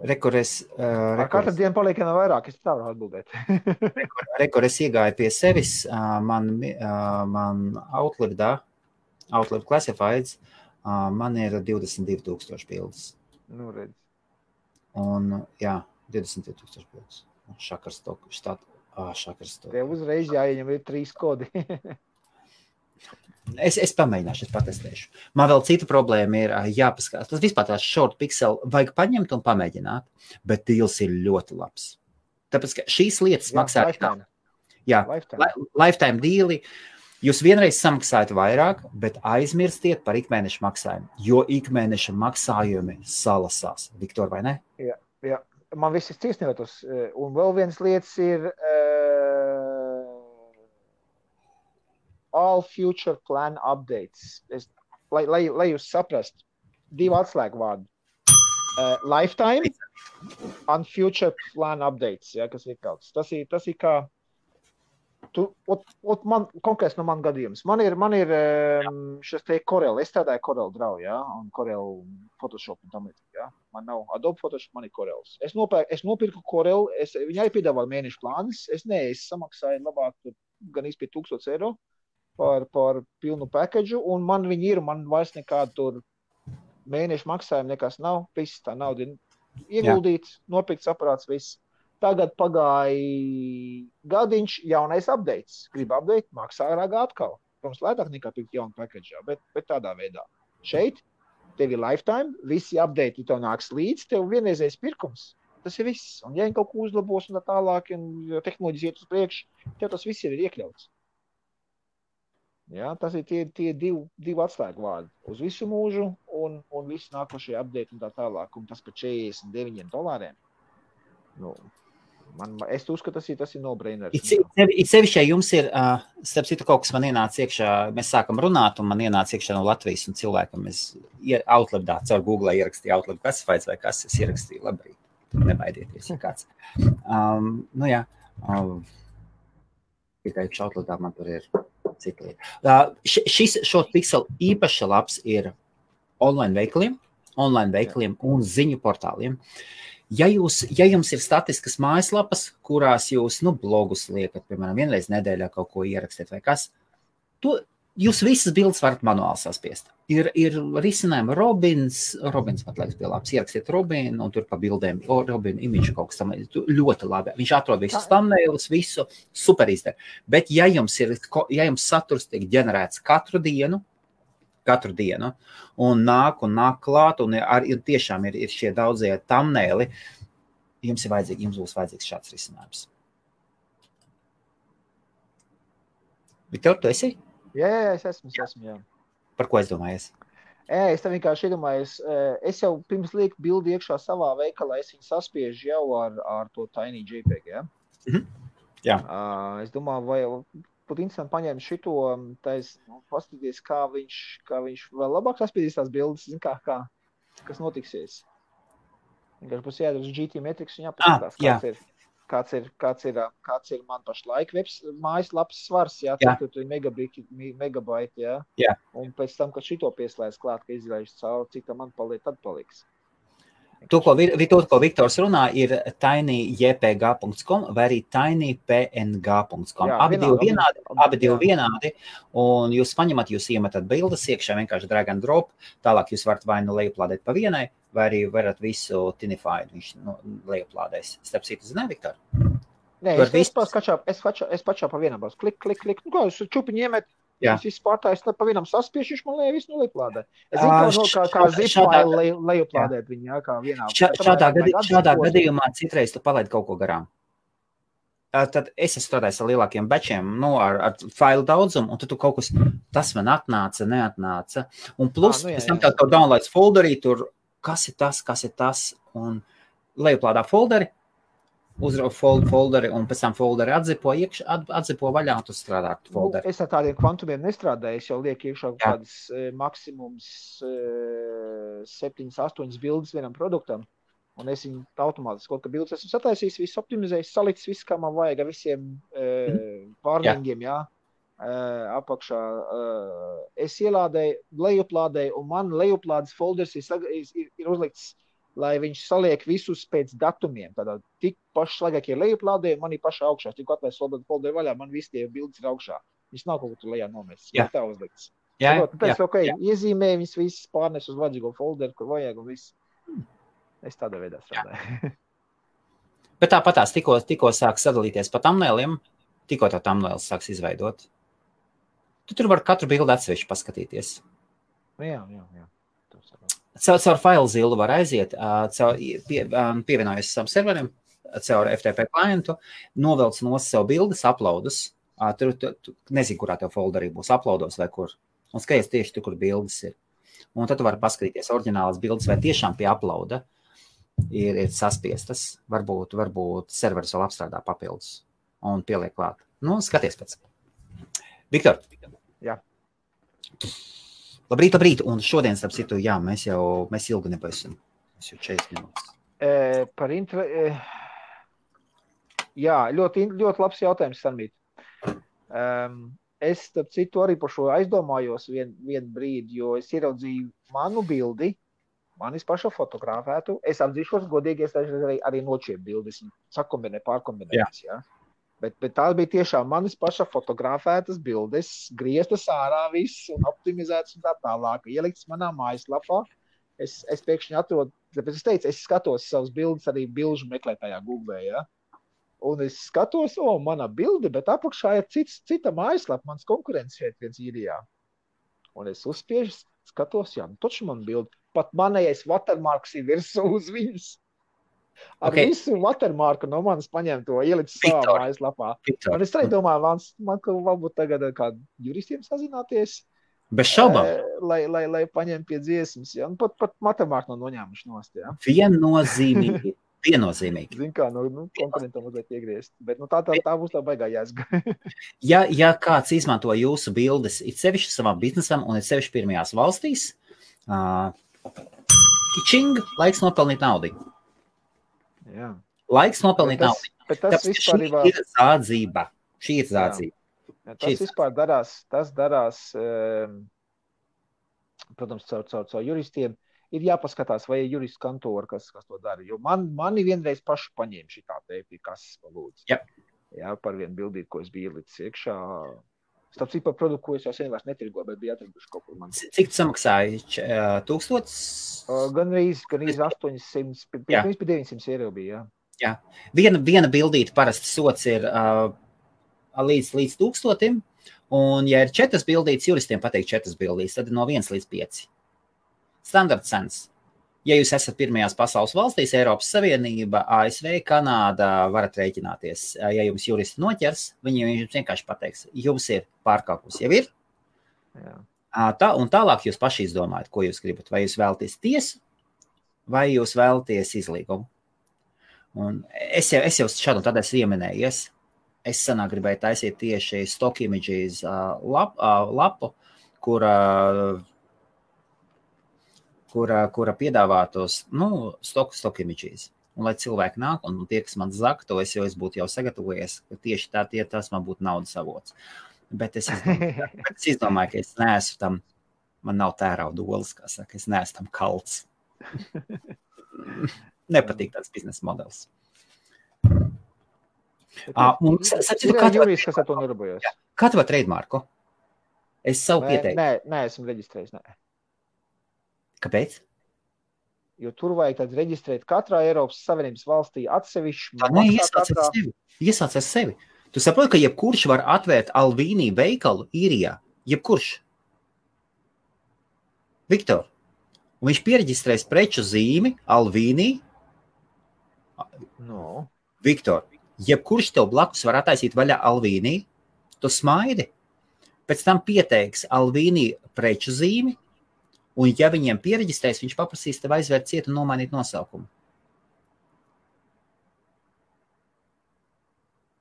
Ar katru dienu paliek no vairāk, es tā varu atbildēt. Es iegāju pie sevis, man Outlook Classifieds, man ir 22,000 bildes. Nu, redz. Un, jā, 22,000 bildes. Šakarstoku. Tev uzreiz jāieņem ir 3 kodi. Es pamēģināšu, es patestēšu. Man vēl cita problēma ir jāpaskatās. Tas vispār tās short pixel vajag paņemt un pamēģināt, bet deals ir ļoti labs. Tāpēc, ka šīs lietas maksā... Lifetime deali. Jūs vienreiz samaksājat vairāk, bet aizmirstiet par ikmēneša maksājumu, jo ikmēneša maksājumi salasās. Viktor, vai ne? Jā. Man viss ir ciesnījotos. Un vēl viens lietas ir... all future plan updates. Lai jūs saprast, 2 atslēgu vārdu. Lifetime and future plan updates, ja, kas ir kaut. Tas ir kā... man, konkrēts no man gadījums. Man ir šis te Corel. Es strādāju Corel Draw, ja, un Corel Photoshop un tam līdzīgi, ja. Man nav Adobe Photoshop, man ir Corels. Es nopirku Corel, viņai piedāvāju mēnešu plānus. Es samaksāju labāk gan izpie 1,000 eiro. Par pilnu package, un man viņi ir, man vairs nekādu tur mēnešu maksājumu nekas nav, viss tā nauda ieguldīts, nopirkts aparāts, viss. Tagad pagāja gadiņš, jaunais updates. Gribu update, maksā ragā atkal. Protams, lētāk nekā pirkt jaunu package, bet tādā veidā. Šeit tev ir lifetime, visi update tev nāks līdz, tev vienreizējs pirkums. Tas ir viss. Un ja viņi kaut ko uzlabos un tā tālāk, un tehnoloģijas iet uz priekšu, tev tas viss ir iekļauts. Ja, tas ir tie 2 atslēgu vārdi uz visu mūžu un visi nākošie update un tā tālāk. Un tas par $49. Nu, es uzskatu, tas ir no-brainer. It sevišķi, jums ir, starp citu, kaut kas man ienāca iekšā, mēs sākam runāt, un man ienāca iekšā no Latvijas un cilvēkam. Es Outloodā caur Google ierakstīju Outlook Classifieds vai kas, es ierakstīju labrīt. Nebaidieties, ja kāds. Nu jā, tikai Outloodā man tur ir cita lieta. Šis short pixel īpaši labs ir online veikaliem un ziņu portāliem. Ja jums ir statiskas mājaslapas, kurās jūs, blogus liekat, piemēram, vienreiz nedēļā kaut ko ierakstīt vai kas, jūs visas bildes varat manuāli saspiest. Ir risinājumi Robins pat liekas bija labs, ierakstiet Robinu un tur pa bildēm, Robinu imidžu kaut kas tam, ļoti labi. Viņš atrod visus thumbnailus, visu, super izdara. Bet ja jums saturs tiek ģenerēts katru dienu, un nāk klāt, un tiešām ir šie daudzie thumbnaili, jums būs vajadzīgs šāds risinājums. Viktor, tu esi? Jā, es esmu, jā. Par ko es domājies? Es tam vienkārši iedomājos, es jau pirms lieku bildi iekšā savā veikalā, es viņu saspiežu jau ar to Tiny JPEG, ja? Jā. Es domāju, vai būtu interesanti paņemt šito, paskatīties, kā viņš vēl labāk saspiedīs tās bildes, kas notiksies. Vienkārši būs jādara uz GT Metrics un jāpaskatās, kāds ir man pašlaik mājaslapas svars, jā, tur ir megabaiti, jā. Jā. Un pēc tam, kad šito pieslēdz klāt, ka izlaiž cauri, cik tam man paliek, tad paliks. To, ko Viktors runā, ir tinyjpg.com vai arī tinypng.com. Abi divi vienādi, un jūs paņemat, jūs iemetat bildes iekšā, vienkārši drag and drop, tālāk jūs varat vai nu lejuplādēt pa vienai, vai arī varat visu tinified, viņš lejuplādēs. Starp citu, zināja, Viktor? Nē, es pačā pa vienam būs. Klik. Nu kā, jūs čupiņi iemet, jūs visu pārtājus, tad pa vienam saspiešu, viņš man visu lejuplādē. Es zinu, kā zip-file lejuplādēt viņu, jā, kā vienā. Šādā gadījumā citreiz tu palaid kaut ko garām. Tad es strādāju ar lielākiem batchiem, ar failu daudzumu, un tad tu kaut kas, tas man atnāca, neatnāca. Un plus, pēc tam tev downloads folderī, tur, kas ir tas, un lejuplādā folderi, uzrauj folderi, un pēc tam folderi atzipo vaļā, un tu strādā ar folderi. Es ar tādiem kvantumiem nestrādāju, es jau lieku iekšā kādas maksimums 7-8 bildes vienam produktam, un es viņu automātiski kaut kā bildes esmu sataisījis, visu optimizējis, salicis visu, kā man vajag, ar visiem warningiem, jā, apakšā. Es ielādēju, lejuplādēju, un man lejuplādes folders ir uzlikts lai viņš saliek visus pēc datumiem. Tādā tik pašlaigākie lejuplādē, manī pašā augšā. Tikko atvērs folderu vaļā, man visi tie bildes ir augšā. Viņš nav kaut kur tur lejā nomestas. Jā. Tā uzlikts. Iezīmēju viņas visas pārnes uz vajadzīgo folderu, kur vajag un viss. Es tādā veidā strādāju. Bet tāpatās tikko sāk sadalīties pa thumbnailiem, tikko tā thumbnails sāks izveidot. Tu tur var katru bildi atsevišķi paskatīties. Jā. Caur FileZilla var aiziet, pievienojas savam serverim, caur FTP klientu, novelc no sev bildes, uploadus. Tur nezinu, kurā tev folderī būs uploados vai kur. Un skaties tieši tur, kur bildes ir. Un tad tu vari paskatīties oriģinālas bildes, vai tiešām pie uploada ir saspiestas. Varbūt serveris vēl apstrādā papildus un pieliek klāt. Nu, skaties pēc. Viktor. Jā. Labrīt. Un šodien, starp citu, jā, mēs ilgi nebaisim. Mēs jau 40 minūtes. Jā, ļoti labs jautājums, Sarmīt. Es, starp citu, arī par šo aizdomājos vienu brīdi, jo es ieraudzīju manu bildi, manis paša fotografētu. Es atzīšos godīgi, es arī nočiep bildes, pārkombinētas, jā. Bet tās bija tiešām manis paša fotografētas bildes, grieztas ārā viss un optimizētas un tā tālāk. Ieliktas manā mājaslapā. Es pēkšņi atrodu, tāpēc es teicu, es skatos savas bildes arī bilžu meklētājā Google, jā. Un es skatos, mana bilde, bet apakšā ir cita mājaslapa, mans konkurents šeit viens īrijā. Un es uzspiežu, skatos, jā, taču man bilde. Pat manējais watermarks ir virsū uz viņas. Ar visu watermarku no manis paņem to, ielicis savā mājaslapā. Un es arī domāju, man varbūt tagad ar kādu juristiem sazināties. Bez šaubām. Lai paņem pie dziesmas, jā. Un pat watermarku noņēmuši nost, jā. Viennozīmīgi. Zin kā, konkurentam mazliet iegriezt. Bet tā būs tā baigā jāsga. Ja kāds izmanto jūsu bildes, it sevišķi savam biznesam un it sevišķi pirmajās valstīs, laiks nopelnīt naudu. Jā. Laiks nopelnīt naudu. Bet tas vispār ir zādzība. Šī ir zādzība. Jā, tas vispār darās, protams, caur juristiem. Ir jāpaskatās, vai ir juristu kantora, kas to dara. Jo mani vienreiz pašu paņēma šitā teipi, kas palūdz. Yep. Jā, par vienu bildīti, ko es biju ielicis iekšā. Starp citu par produktu, ko es jau sen vairs netirgoju, bet bija atraduši kaut kur man. Cik samaksāja? 1000? Gandrīz 800, pirms 900 eiro bija, jā. Jā. Viena bildīte parasti sots ir līdz 1000, un ja ir 4 bildītes, juristiem pateikt 4 bildītes, tad no 1 līdz 5. Standarta cenas. Ja jūs esat pirmajās pasaules valstīs, Eiropas Savienība, ASV, Kanāda, varat rēķināties. Ja jums juristi noķers, viņi jums vienkārši pateiks, jums ir pārkāpums, jau ir. Jā. Un tālāk jūs paši izdomājat, ko jūs gribat. Vai jūs vēlaties tiesu, vai jūs vēlaties izlīgumu. Un es jau šādu un tad esmu ieminējies. Es senāk gribēju taisīt tieši stock images lapu, kura piedāvātos, stock images. Un lai cilvēki nāk, un tie, kas man zaka, to es būtu jau sagatavojies, ka tieši tas man būtu naudas avots. Bet es izdomāju, ka es neesmu tam, man nav tērauda olas, kā saka, es neesmu tam kalts. Nepatīk tāds biznesa modelis. Ir jurists, kas ar to nedarbojas. Kā tev trademarku? Es savu pieteiktu. Nē, esmu reģistrējis, nē. Kāpēc? Jo tur vajag tad reģistrēt katrā Eiropas Savienības valstī atsevišķi. Iesāc ar sevi. Tu saproti, ka jebkurš var atvērt Alvīnī veikalu īrijā. Jebkurš. Viktor. Un viņš piereģistrēs preču zīmi Alvīnī. No. Viktor. Jebkurš tev blakus var attaisīt vaļā Alvīnī. Tu smaidi. Pēc tam pieteiks Alvīnī preču zīmi. Un, ja viņiem piereģistrēs, viņš paprasīs tev aizvērt cietu un nomainīt nosaukumu.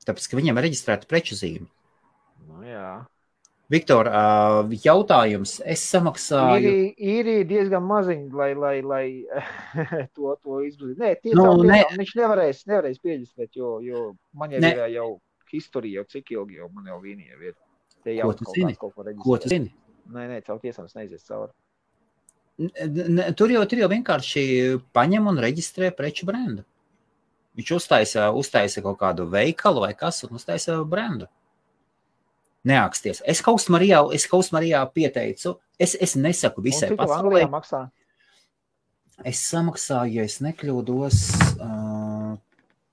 Tāpēc, ka viņiem ir reģistrēta preču zīme. Nu, jā. Viktor, jautājums. Es samaksāju... Īrija diezgan maziņi, lai to izglīt. Nē, tiešām viņš nevarēs piereģistrēt, jo man jau ir jau historija, jau cik ilgi jau man jau Vīnija ir. Ko tu zini? Nē, caur tiesām es neizies cauri. Tur jau vienkārši paņem un reģistrē preču brendu. Viņš uztaisa kaut kādu veikalu vai kas un uztaisa brendu. Neāksties. Es Kaustmarijā pieteicu. Es nesaku visai pasaulē. Maksā? Es samaksāju, ja es nekļūdos,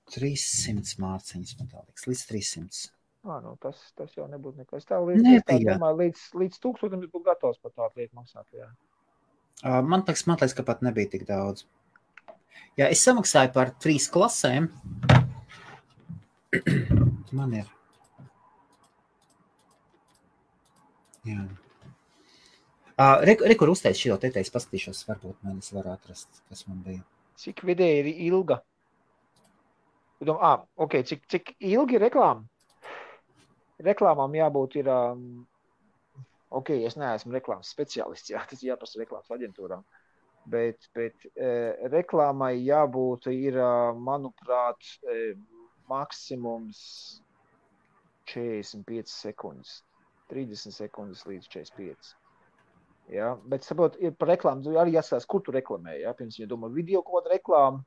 300 mārciņas, man tā liekas, līdz 300. Nu, tas jau nebūtu nekas. Es tā domāju, līdz 1000 būtu gatavs par tādu lietu maksāt. Jā. Man liekas, ka pat nebija tik daudz. Jā, es samaksāju par 3 klasēm. Man ir. Jā. Kur uzteic šo te teiks, paskatīšos, varbūt man es varu atrast, kas man bija. Cik vidēji ir ilga? Ok, cik ilgi reklāma? Reklāmām jābūt ir, ok, es neesmu reklāmas speciālists, jā, tas jāprasa reklāmas aģentūrām, bet reklāmai jābūt ir, manuprāt, maksimums 45 sekundes, 30 sekundes līdz 45. Jā, bet, saprot, par reklāmu arī jāskatās, kur tu reklamē, jā, pirms, ja domā video kaut kāda reklāma,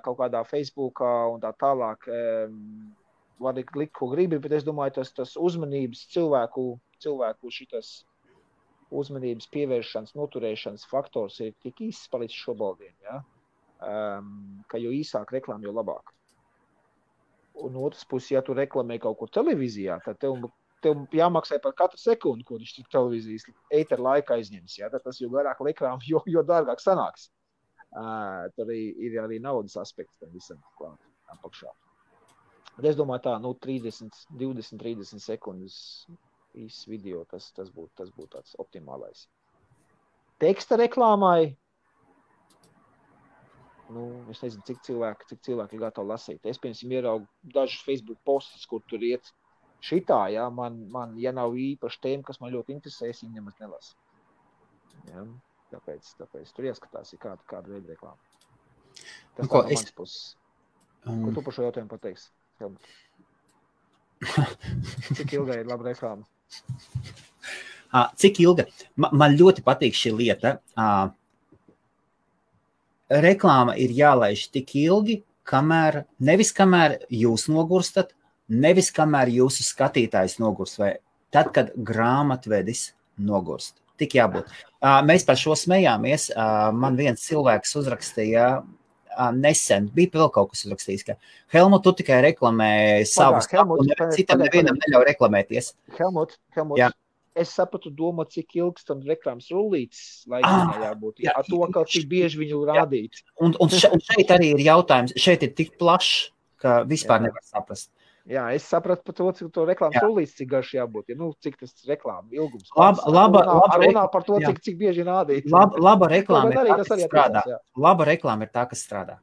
kaut kādā Facebookā un tā tālāk, var likt, ko gribi, bet es domāju, tas uzmanības cilvēku šitas uzmanības pievēršanas, noturēšanas faktors ir tik īsts palicis šobaldien, ja? Ka jo īsāk reklāma, jo labāk. Un otrs puses, ja tu reklamē kaut ko televīzijā, tad tev jāmaksā par katru sekundi, ko viņš televīzijas ētera laika aizņems, ja? Tad tas jo garāk reklāma, jo dārgāk sanāks. Tad ir arī naudas aspekts tam visam klāt apakšā. Bet es domāju tā, 20-30 sekundes īsts video, tas būtu tāds optimālais. Teksta reklāmai, es nezinu, cik cilvēki ir gatavi lasīt. Es, piemēram, ieraugu dažus Facebook postus, kur tur iet šitā, ja, man ja nav īpaši tēma, kas man ļoti interesē, es viņu nemaz nelasu. Ja, tāpēc tur jāskatās, ir kāda veida reklāma. Tas tā no manas puses. Ko tu par šo jautājumu pateiksi? Cik ilga ir laba reklāma? Cik ilga? Man ļoti patīk šī lieta. Reklāma ir jālaiž tik ilgi, nevis kamēr jūs nogurstat, nevis kamēr jūsu skatītājs nogurst, vai tad, kad grāmatvedis nogurst. Tik jābūt. Mēs par šo smējāmies. Man viens cilvēks uzrakstīja nesen, bija vēl kaut kas uzrakstījis, ka Helmut, tu tikai reklamē savus, citam nevienam neļauj reklamēties. Helmut, jā. Es sapratu domu, cik ilgs tam reklāmas rullītes laikā jābūt. Jā, to, ka cik bieži viņu rādīt. Un šeit arī ir jautājums, šeit ir tik plašs, ka vispār nevar saprast. Jā, es sapratu par to, cik to reklāmas rullītes, cik garš jābūt. Ja, cik tas reklāma ilgums. Runā par to, cik bieži rādīt. Laba reklāma ir tā, kas strādā. Laba reklāma ir tā, kas strādā.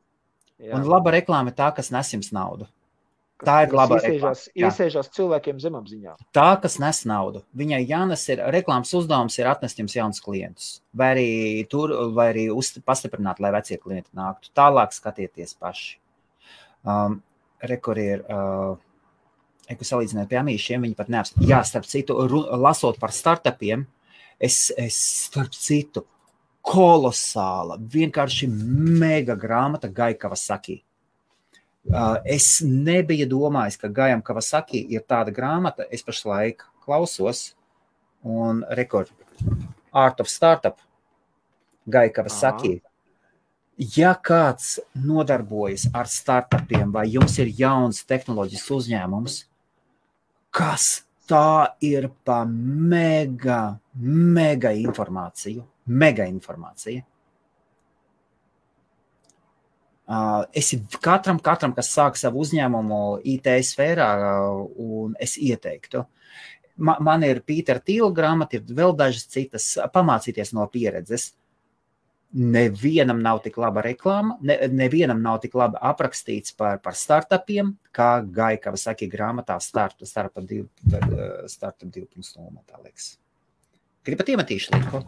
Jā. Un laba reklāma ir tā, kas nes jums naudu. Tā ir laba reklāma. Iesēžās cilvēkiem zemapziņā. Tā, kas nes naudu. Viņai jānes reklāmas uzdevums ir atnest jums jaunus klientus. Vai arī pastiprināt, lai vecie klienti nāktu. Tālāk skatieties paši. Rekur ir... Ko salīdzināt pie amīšiem, viņi pat neapstāv. Jā, starp citu, lasot par startupiem, es starp citu, kolosāla, vienkārši mega grāmata Gai Kawasaki. Es nebiju domājis, ka Gaiam Kawasaki ir tāda grāmata, es pašlaik klausos, un rekord, Art of Startup, Gai Kawasaki. Ja kāds nodarbojas ar startupiem, vai jums ir jauns tehnoloģisks uzņēmums, kas tā ir pa mega informāciju. Mega informācija. Es katram, kas sāk savu uzņēmumu IT sfērā, un es ieteiktu. Man ir Pītera Tīla grāmata, ir vēl dažas citas, pamācīties no pieredzes. Nevienam nav tik laba reklāma, nevienam nav tik labi aprakstīts par startupiem, kā Gai Kawasaki grāmatā Startup 2.0, tā liekas. Gribat iemetīšu linku?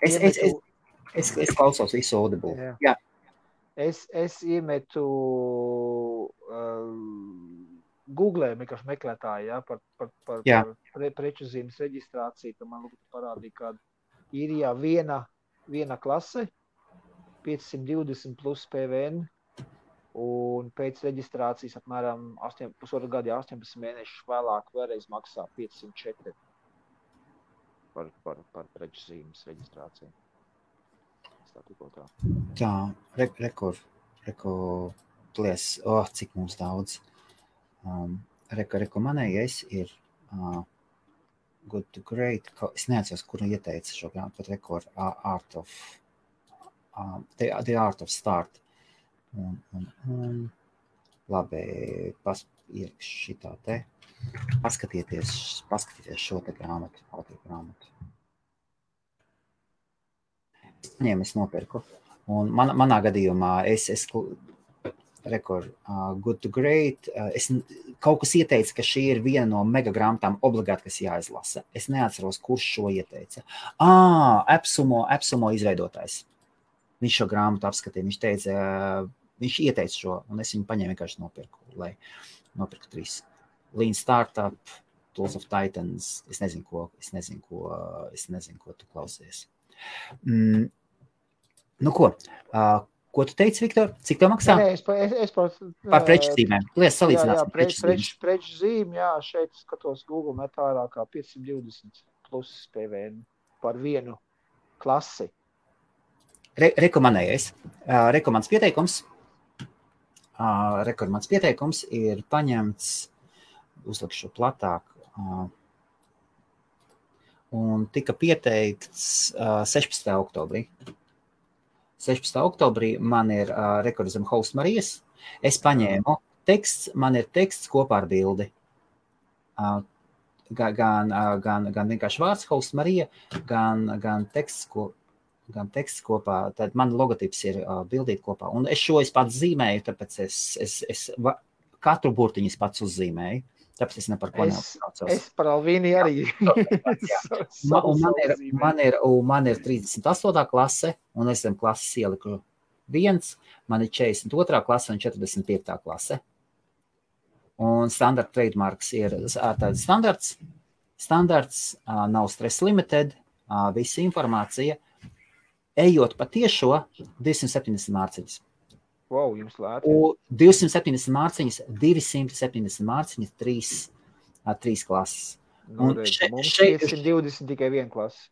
Es klausos visu Audible. Jā. Es iemetu googlēju vienkārši meklētāji, ja, par preču zīmes reģistrāciju, tad man parādīja, ka Īrijā viena klase, 520 plus PVN, un pēc reģistrācijas apmēram 1,5 gadu, 18 mēnešus vēlāk vēlreiz maksā 504 par preču zīmes reģistrāciju. Tā, rekord, cik mums daudz. Manējais ir Good to Great. Es neatceros, kuru ieteica šo grāmatu, pat rekord The Art of Start. Un labi, ielikšu šitā te. Paskatieties šo te grāmatu, autogrāmatu. Es nopirku. Un manā gadījumā Good to Great. Es kaut kas ieteica, ka šī ir viena no mega grāmatām obligāti, kas jāizlasa. Es neatceros, kurš šo ieteica. Epsumo izveidotājs. Viņš šo grāmatu apskatīja. Viņš ieteica šo, un es viņu paņēmu vienkārši nopirku, lai nopirku 3. Lean Startup, Tools of Titans. Es nezinu, ko tu klausies. Nu ko? Ko tu teici, Viktor? Cik tev maksā? Es par preču zīmēm. Lies salīdzināsim preču zīmi, jā, šeit skatos Google metā vairāk kā 520 plus PVN par vienu klasi. Rekomendējais. Rekomands pieteikums ir paņemts, uzlikšu platāk, un tika pieteikts 16. oktobrī. 16. oktobrī man ir rekordizam host Marijas. Es paņēmu teksts, man ir teksts kopā ar bildi. Gan vienkārši vārds host Marija, gan teksts kopā. Tad man logotips ir bildīt kopā. Un es pats zīmēju, tāpēc es katru burtiņu pats uzzīmēju. Tāpēc es ne par ko neuztraucos. Es par Alvīni arī. Man ir 38. klase, un es zem klases ieliku 1, man ir 42. klase un 45. klase. Un standard trademarks ir tāds standards, nav stress limited, visa informācija. Ejot pa tiešo 270 mārciņas. Wow, jums lēti. 270 mārciņas, 270 mārciņas, 3 klases. Mums 520 tikai 1 klase.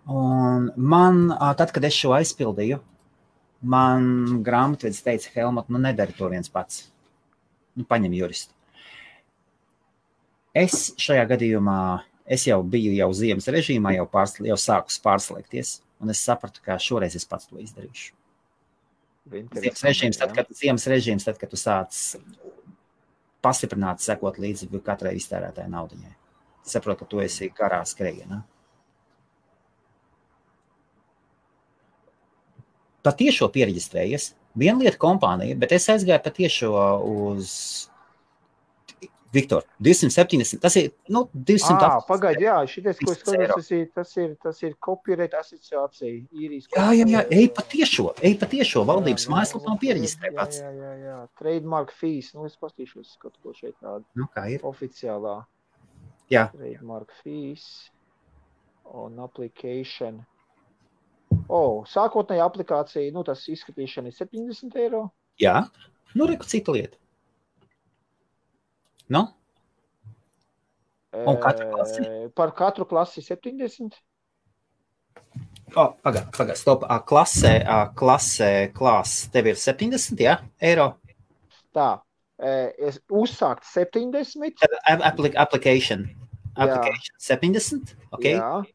Un man, tad, kad es šo aizpildīju, man grāmatvedis teica, Helmut, nedari to viens pats. Paņem juristu. Es šajā gadījumā, es jau biju ziemas režīmā, jau sāku pārslēgties, un es sapratu, ka šoreiz es pats to izdarīšu. Ziemas režīms, tad, kad tu sāc pastiprināt, sekot līdzi katrai iztērētāja naudiņai. Saprotu, ka tu esi garā skrejienā. Patiešo piereģistrējies. Viena lieta kompānija, bet es aizgāju patiešo uz Viktor, 270, tas ir, 200. Pagaidi, jā, šitais, ko es skatos, tas ir copyright asociācija, īrijas. Jā, ej patiešo, valdības mājaslapā piereģistrē pats. Jā, trademark fees, es pastīšos kaut ko šeit tādu. Kā ir? Oficiālā. Jā. Trademark fees on application. Sākotnēja aplikācija, tas izskatīšana ir 70 eiro. Jā, reku cita lieta. Un katru klasi? Par katru klasi 70. Pagad, stop. Klase tev ir 70, jā, eiro? Tā, es uzsākt 70. Application 70, ok? Jā,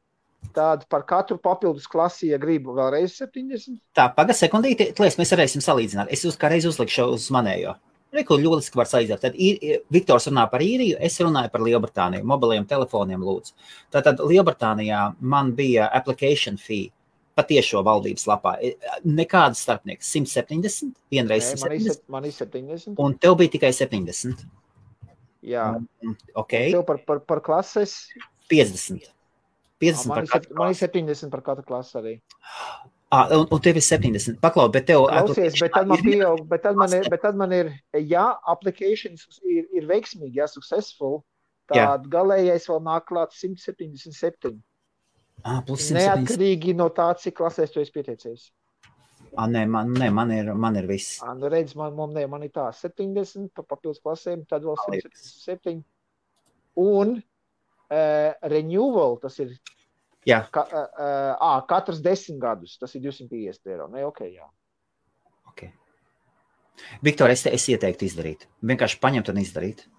tāda par katru papildus klasi, ja gribu vēlreiz 70. Tā, pagad sekundīti, mēs varēsim salīdzināt. Es kā reiz uzlikšu uz manējo. Reku ļoliski var saīzēt. Tad Viktors runā par Īriju, es runāju par Lielbritāniju, mobiliem telefoniem lūdzu. Tātad Lielbritānijā man bija application fee patiešo valdības lapā. Nekādas starpnieks, 170, vienreiz 170. Man ir 70. Un tev bija tikai 70. Jā. Ok. Un tev par klases? 50. 50 man ir 70 par katru klasi arī. Un tev ir 70. Paklau, bet tev... Klausies, bet tad man pieaug, bet tad man ir, ja applications ir veiksmīgi, ja successful, tad galējais vēl nāk klāt 177. Plus 177. Neatkarīgi no tā, cik klasēs tu esi pieteicies. Man ir viss. Nu redz, man ir tā 70 pa papildus klasēm, tad vēl 177. Un renewal, tas ir katrs 10 gadus, tas ir €250. Ne, jā. Okay. Viktor, es ieteiktu izdarīt. Vienkārši paņemt un izdarīt.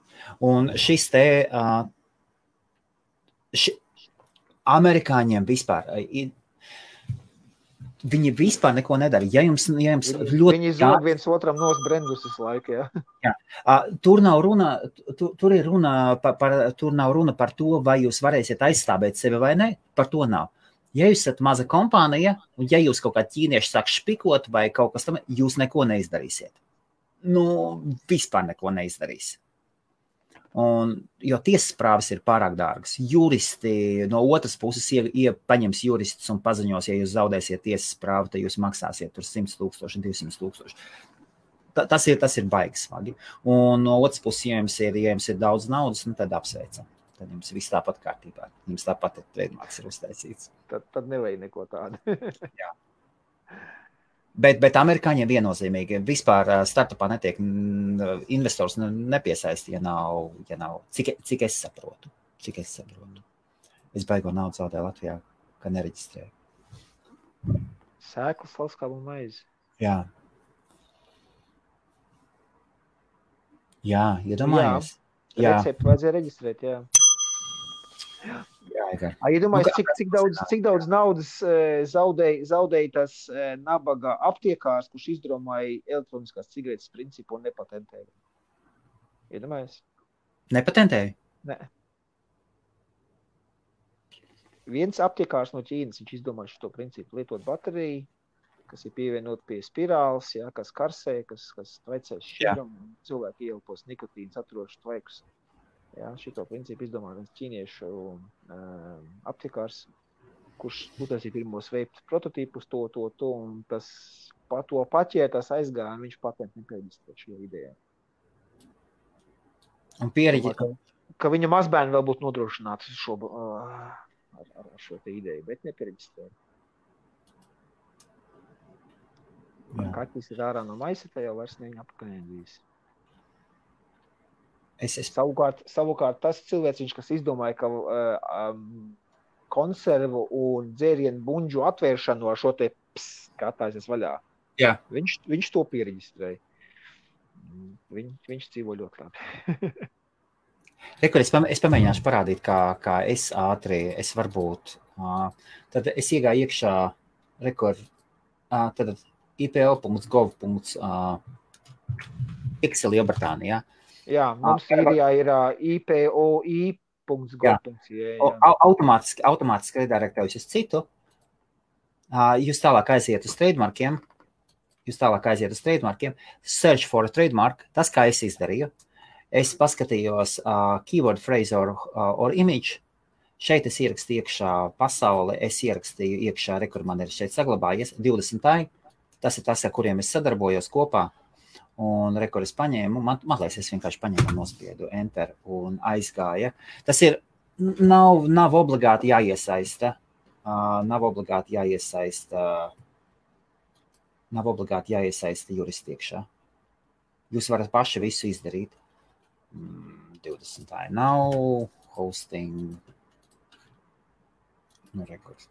Un šis te amerikāņiem vispār viņi vispār neko nedara. Ja jums ļoti... Viņi zog viens otram nos brendus visu laiku, jā. Tur nav runa par to, vai jūs varēsiet aizstāvēt sevi vai ne, par to nav. Ja jūs esat maza kompānija, un ja jūs kaut kā ķīnieši sāk špikot vai kaut kas tam, jūs neko neizdarīsiet. Vispār neko neizdarīs. Jo tiesas prāvas ir pārāk dārgas. Juristi no otras puses paņems juristus un paziņos, ja jūs zaudēsiet tiesas prāvu, tad jūs maksāsiet tur 100,000, 200,000. Tas ir baigi smagi. Un no otras puses, ja jums ir daudz naudas, tad apsveicam. Tad jums viss tāpat kārtībā. Jums tāpat ir trademarks ir uztaisīts. Tad nevajag neko tādu. Jā. Bet amerikāņiem viennozīmīgi vispār startupā netiek investors nepiesaist, ja nav cik es saprotu. Es baigo naudu zaudēju Latvijā, ka nereģistrēju. Sēklas, salskābu un maizi. Jā, iedomājies. Jā, recepti vajadzēja reģistrēt, jā. Iedomājies, cik daudz naudas zaudēja tas nabaga aptiekārs, kurš izdomāja elektroniskās cigaretes principu un nepatentēja. Iedomājies? Nepatentēja? Nē. Viens aptiekārs no Ķīnas, viņš izdomāja šo principu lietot bateriju, kas ir pievienot pie spirāles, kas karsē, kas traicē šķiram, cilvēki ieelpos nikotīnu saturošus tvaikus. Šito principu izdomāja ķīniešu aptiekārs, kurš uztaisīja pirmos vape prototipus, to, un to paķētas aizgāja, un viņš patentu nereģistrē šo ideju. Un piereģi... Ka viņa mazbērni vēl būtu nodrošināti ar šo te ideju, bet nereģistrē. Kaķis ir ārā no maisa, tā jau vairs neviņa apakaļ. Savukārt tas cilvēks, kas izdomāja, ka konservu un dzērienu buņģu atvēršanu ar šo te kā tāsies vaļā, viņš to piereģistrēja. Viņš dzīvo ļoti labi. Es pamēģināšu parādīt, kā es varbūt. Tad es iegāju iekšā tad ipo.gov.pixel Lielbritānijā. Jā, mums Sīrijā ir ipoi.gov.ua. Automātiski redirektējuši uz citu. Jūs tālāk aiziet uz trademarkiem. Search for a trademark. Tas, kā es izdarīju. Es paskatījos keyword phrase or image. Šeit es ierakstīju iekšā pasauli. Es ierakstīju iekšā, kur man ir šeit saglabājies 20. Tas ir tas, ar kuriem es sadarbojos kopā. Un es paņēmu, man liekas, es vienkārši paņēmu un nospiedu enter un aizgāja. Tas ir, nav obligāti jāiesaista, juristi iekšā. Jūs varat paši visu izdarīt. 20. nav, hosting.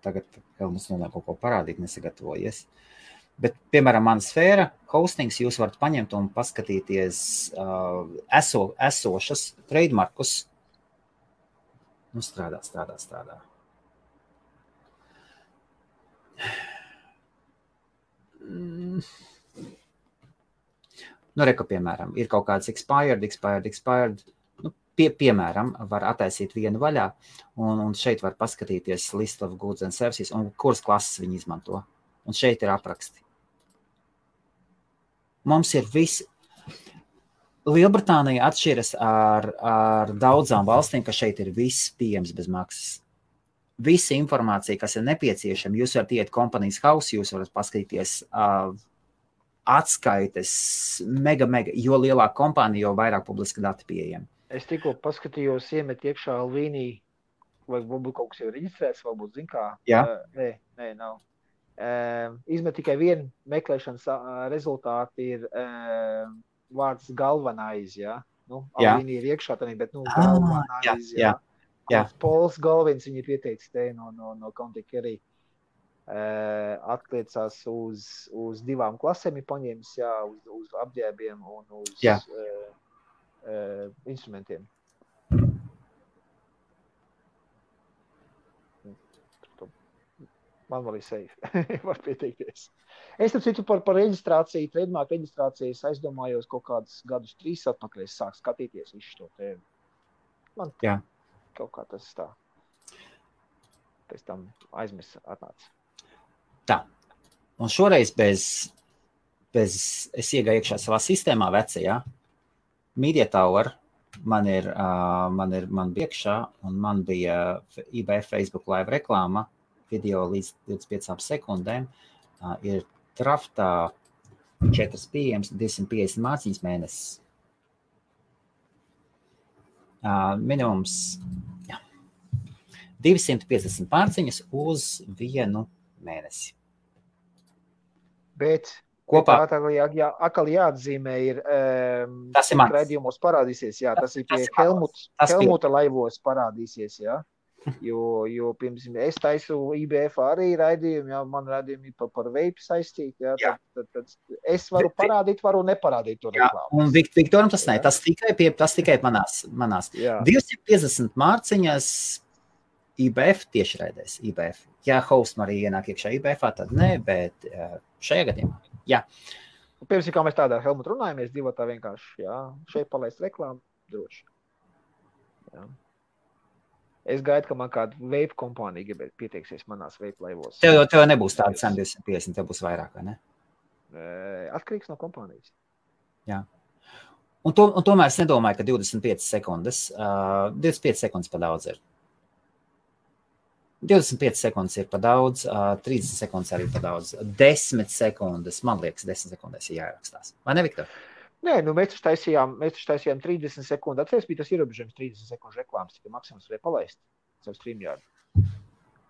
Tagad vēl mums nonāk kaut ko parādīt, nesagatavojies. Bet, piemēram, mana sfēra, hostings, jūs varat paņemt un paskatīties esošas trademarkus. Strādā. Piemēram, ir kaut kāds expired. Piemēram, var attaisīt vienu vaļā, un šeit var paskatīties list of goods and services, un kuras klases viņi izmanto. Un šeit ir apraksti. Mums ir viss. Lielbritānija atšķiras ar daudzām valstīm, ka šeit ir viss pieejams bez maksas. visa informācija, kas ir nepieciešama, jūs varat iet Companies House, jūs varat paskatīties atskaites mega, jo lielāka kompānija, jo vairāk publiska dati pieejami. Es tikko paskatījos, iemet iekšā Alvīnī, vai varbūt kaut kas jau reģistrēts, varbūt zin kā. Jā. Nē, nav. Izmet tikai vienu meklēšanas rezultāti ir vārds galvenais, jā. Nu, Alvīnī ir iekšā tādā, bet galvenais, jā. Pols Galvins viņa pieteicis te no Kontika arī atliecās uz 2 klasēm ir paņēmis, jā, uz apģēbiem un uz instrumentiem. Man vēl ir safe, var pieteikties. Es tam citu par reģistrāciju, trademark reģistrāciju, es aizdomājos kaut kādus gadus 3 atpakaļ, es sāku skatīties visu šo tēmu. Man kaut kā tas tā. Pēc tam aizmirst atnāca. Tā. Un šoreiz bez es iegāju iekšā savā sistēmā vecajā. Media Tower man bija iekšā, un man bija IBF Facebook live reklāma, video līdz 25 sekundēm, ir traftā 4 pieejams, 250 mārciņas mēnesis. Minimums 250 mārciņas uz 1 mēnesi. Bet kopā atkal jāatzīmē ir raidījumos parādīsies, jā, tas ir pie Helmuta laivos parādīsies, jā. Jo piemēram, es taisu IBF arī raidījumu, jā, man raidījumi par vape saistīti, jā, tad es varu parādīt, varu neparādīt to reklāmu. Un Viktoram tas ne, tas tikai manās. 250 mārciņas IBF tiešraidēs, IBF. Ja host arī ienāk iekšā IBF, tad ne, bet šajā gadījumā, jā. Piemēram, kā mēs tādā Helmut runājamies, divatā vienkārši, jā, šeit palaist reklāmu, droši. Jā. Es gaidu, ka man kāda vape kompānija pieteiksies manās vape laivos. Tev nebūs tāda cena 250, tev būs vairāk, vai ne? Atkarīgs no kompānijas. Jā. Un tomēr es nedomāju, ka 25 sekundes pa daudz ir. 25 sekundes ir pa daudz, 30 sekundes arī pa daudz, 10 sekundes, man liekas, 10 sekundes ir jāierakstās. Vai ne, Viktor? Nē, mēs taisījām 30 sekundu. Atceries, bija tas ierobežojums 30 sekundu reklāmas, tikai maksimums varēja palaist savu StreamYard.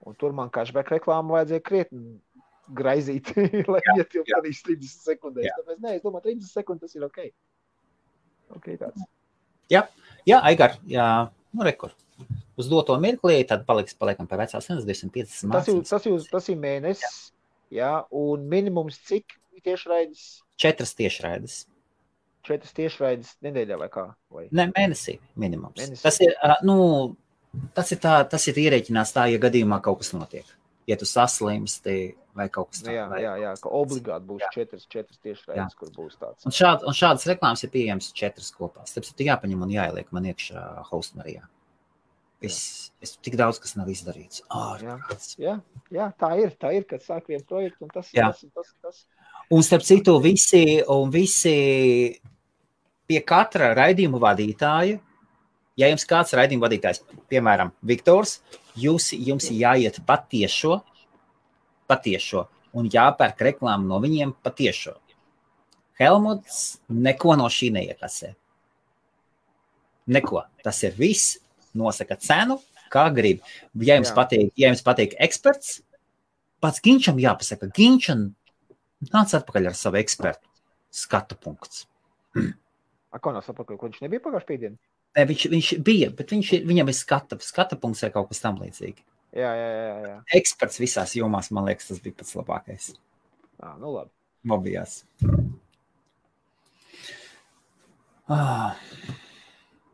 Un tur man cashback reklāmu vajadzēja krietni graizīt, lai ietilpties 30 sekundēs. Tāpēc, nē, es domāju, 30 sekundes tas ir ok. Ok, tāds. Jā, Aigar, nu rekur. Uz doto mirklī, tad paliekam pie vecās cenas 250 mārciņas. Tas ir mēnesis, jā, un minimums cik tiešraides? 4 tiešraides. 4 tiešraides nedēļā vai kā? Vai? Ne, mēnesī minimums. Mēnesī. Tas ir ierēķinās tā, ja gadījumā kaut kas notiek. Ja tu saslimsti vai kaut kas tā. Jā, ka obligāti būs 4 tiešraides, kur būs tāds. Un šādas reklāmas ir pieejams 4 kopā. Tāpēc ir jāpaņem un jāieliek man iekšā Hostmarijā. Es tik daudz, kas nav izdarīts. Jā, tā ir, kad sāk vienu projektu, un tas. Un starp citu, visi pie katra raidījuma vadītāja, ja jums kāds raidījuma vadītājs, piemēram, Viktors, jums jāiet patiešo, un jāpērk reklāmu no viņiem patiešo. Helmuts neko no šī neiekasē. Neko. Tas ir viss. Nosaka cenu, kā grib. Ja jums patīk eksperts, pats Ginčam jāpasaka. Ginčam nāc atpakaļ ar savu ekspertu. Skatu punkts. Kā nāc atpakaļ? Ko viņš nebija pagājuši pēdien? Ne, viņš bija, bet viņam ir skata punkts vai kaut kas tam līdzīgi. Jā. Eksperts visās jomās, man liekas, tas bija pats labākais. Nu labi. Mobijās.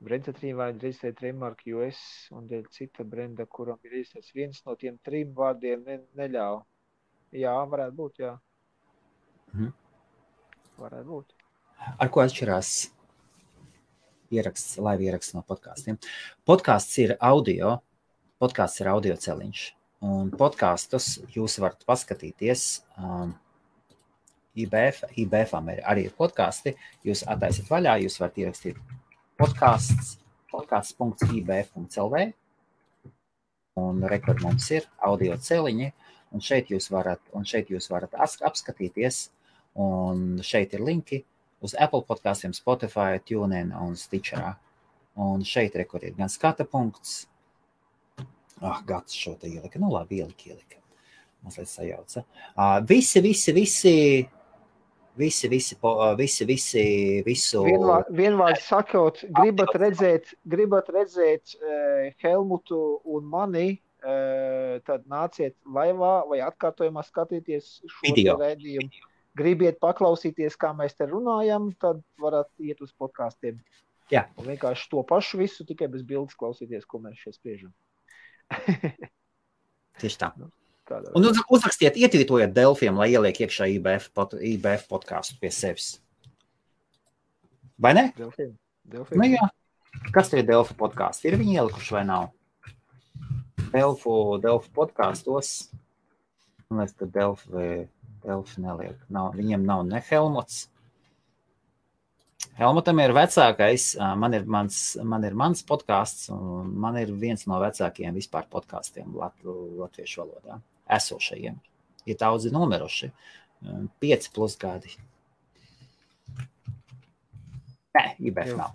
Brenda 3 vārdi reģistrēt trademark US un dēļ cita brenda, kuram ir reģistrēts viens no tiem 3 vārdiem neļauj. Jā, varētu būt, jā. Varētu būt. Ar ko atšķirās live ieraksts no podkāstiem? Podkāsts ir audio celiņš. Un podkāstus jūs varat paskatīties. IBF-am arī ir podkāsti. Jūs attaisiet vaļā, jūs varat ierakstīt podcasts.ibf.lv un rekord mums ir audio celiņi, un šeit jūs varat apskatīties, un šeit ir linki uz Apple podkastiem, Spotify, TuneIn un Stitcherā. Un šeit rekord ir gan skata punkts. Gats šo te ielika. Nu labi, ielika. Mazliet sajauca. Visu. Vienvārds sakot, gribat redzēt Helmutu un mani, tad nāciet laivā vai atkārtojumā skatīties šo raidījumu. Gribiet paklausīties, kā mēs te runājam, tad varat iet uz podkastiem. Jā. Un vienkārši to pašu visu, tikai bez bildes klausīties, ko mēs šeit spriežam. Tieši tā. Un uzrakstiet, ietvītojiet Delfiem, lai ieliek iekšā IBF podcastu pie sevis. Vai ne? Delfiem. Nu jā. Kas te ir Delfi podcasts? Ir viņi ielikuši vai nav? Delfi podkastos. Man liekas, ka Delfi neliek. Viņiem nav ne Helmuts. Helmutam ir vecākais, man ir mans podcasts, un man ir viens no vecākajiem vispār podkastiem latviešu valodā, esošajiem. Ir daudzi nomiruši, 5+ gadi. Nē, IBF nav.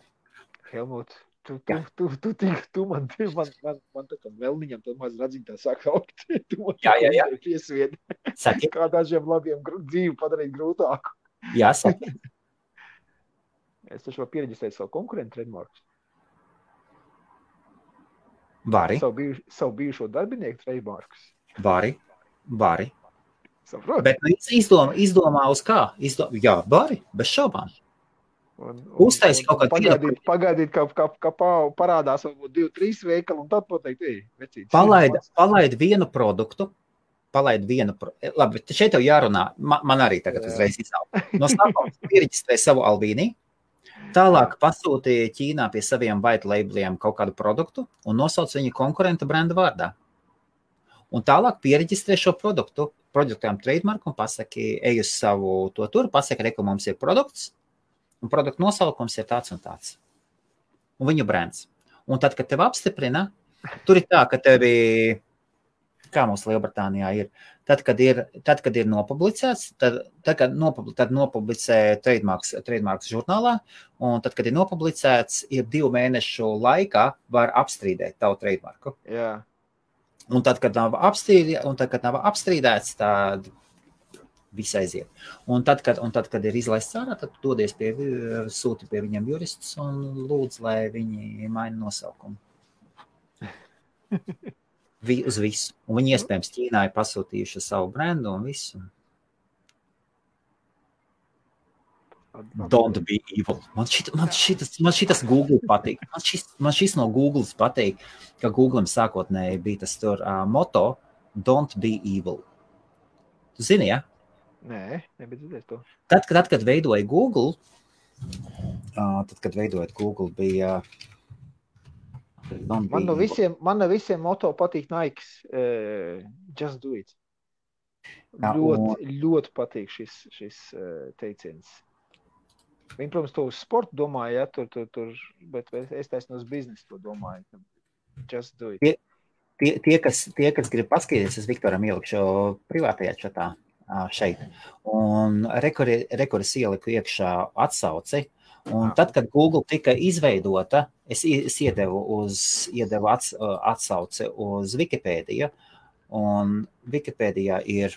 Helmut, tu man tā kā vēlniņam, tad maz radziņtā sāk augt. Tu man jā. Piesviedi. Saki. Kā dažiem labiem dzīvi padarīt grūtāku. Jā, saki. Es taču varu piereģistrēt savu konkurentu trademarkus. Vari. Savu bijušo darbinieku trademarkus. Vari. Saprot? Bet izdomā uz kā? Jā, vari, bez šaubām. Uztaisi kaut kādu pagaidīt, kā parādās varbūt 2-3 veikali, un tad pateikt, vecīt. Palaid vienu produktu. Labi, šeit tev jārunā. Man arī tagad uzreiz izauga. No sākuma piereģistrē savu Albīnī. Tālāk pasūtīja Ķīnā pie saviem white labeliem kaut kādu produktu un nosauc viņu konkurenta brenda vārdā. Un tālāk piereģistrē šo produktām trademarku un pasaki, ej uz savu to tur, pasaki, ka mums ir produkts, un produktu nosaukums ir tāds un tāds. Un viņu brands. Un tad, kad tev apstiprina, tur ir tā, ka tevi, kā mums Lielbritānijā ir, tad, kad ir nopublicēts, tad nopublicē trademarks žurnālā, un tad, kad ir nopublicēts, ir 2 mēnešu laikā var apstrīdēt tavu trademarku. Jā. Un tad, kad nav apstrīdēts, tad viss aiziet. Un tad, kad ir izlaists ārā, tad dodies sūti pie viņiem juristus un lūdz, lai viņi maina nosaukumu. Uz visu. Un viņi iespējams Ķīnā ir pasūtījuši savu brendu un visu. Don't be evil. Man šitas Google patīk. Man šis no Googles patīk, ka Google'am sākotnēji bija tas tur moto Don't be evil. Tu zini, ja? Nē, nebija dzirdēt to. Tad, kad veidoja Google, bija Man no visiem moto patīk Nikes. Just do it. Ļoti patīk šis teiciens. Viņi, protams, to uz sportu domāja, tur, bet es taisnu uz biznesu to domāju. Just do it. Tie, kas grib paskatīties, es Viktoram ielikšu privātajā čatā šeit. Un rekords ieliku iekšā atsauci. Un tad, kad Google tika izveidota, es iedevu atsauci uz Wikipēdiju, un Wikipēdijā ir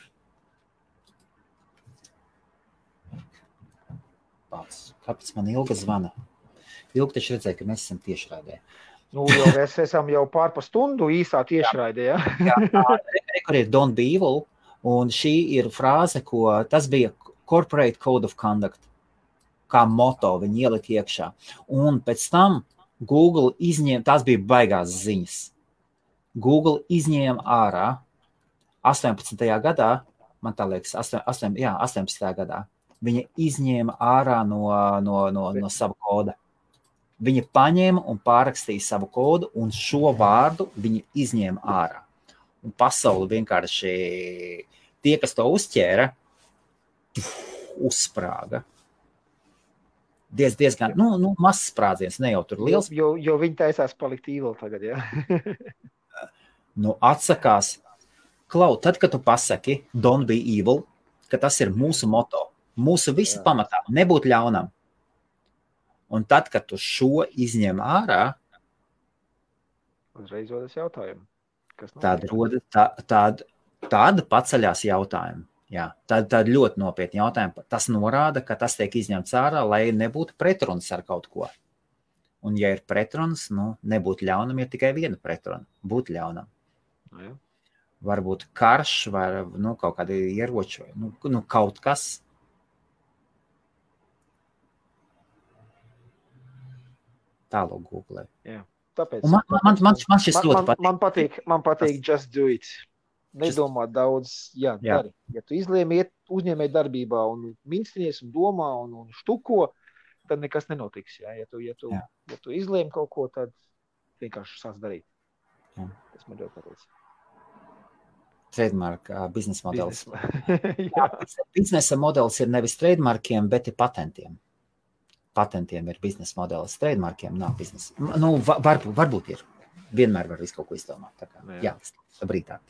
kāpēc man Ilga zvana? Ilga taču redzēja, ka mēs esam tiešraidē. Nu, jau mēs esam jau pārpa stundu īsā tiešraidē, ja? Jā, rekur ir Don't be evil, un šī ir frāze, tas bija Corporate Code of Conduct, kā moto viņi ielika iekšā. Un pēc tam Google tās bija baigās ziņas. Google izņēma ārā 18. gadā, man tā liekas, 18. gadā, viņa izņēma ārā no sava koda. Viņa paņēma un pārrakstīja savu kodu, un šo vārdu viņa izņēma ārā. Un pasauli vienkārši tie, kas to uzķēra, uzsprāga. Diezgan, mazs sprādziens, ne jau tur liels. Jo viņi taisās palikt evil tagad, jā. Atsakās. Klau, tad, kad tu pasaki don't be evil, ka tas ir mūsu moto, mūsu visa pamatā, nebūt ļaunam. Un tad, kad tu šo izņem ārā, uzreiz rodas jautājumu. Tad paceļās jautājumu. Jā, tad ļoti nopietni jautājumi. Tas norāda, ka tas tiek izņemts ārā, lai nebūtu pretrunas ar kaut ko. Un ja ir pretrunas, nebūt ļaunam, ir tikai viena pretruna. Būt ļaunam. Jā. Varbūt karš vai kaut kādi ieroči, kaut kas. Tālāk Google. Jā. Tāpēc, man šis ļoti patīk. Man patīk just do it. Nedomā daudz, dari. Ja tu izlēmi iet uzņēmēji darbībā un minstinies un domā un štuko, tad nekas nenotiks. Ja tu izlēmi kaut ko, tad vienkārši sāc darīt. Jā. Tas man ļoti patīk. Trademark biznesa modelis. Biznesa modelis ir nevis trademarkiem, bet ir patentiem. Patentiem ir biznesa modelis. Trademarkiem nav biznesa. Varbūt ir. Vienmēr var visu kaut ko izdomāt. Tā kā, brītāk.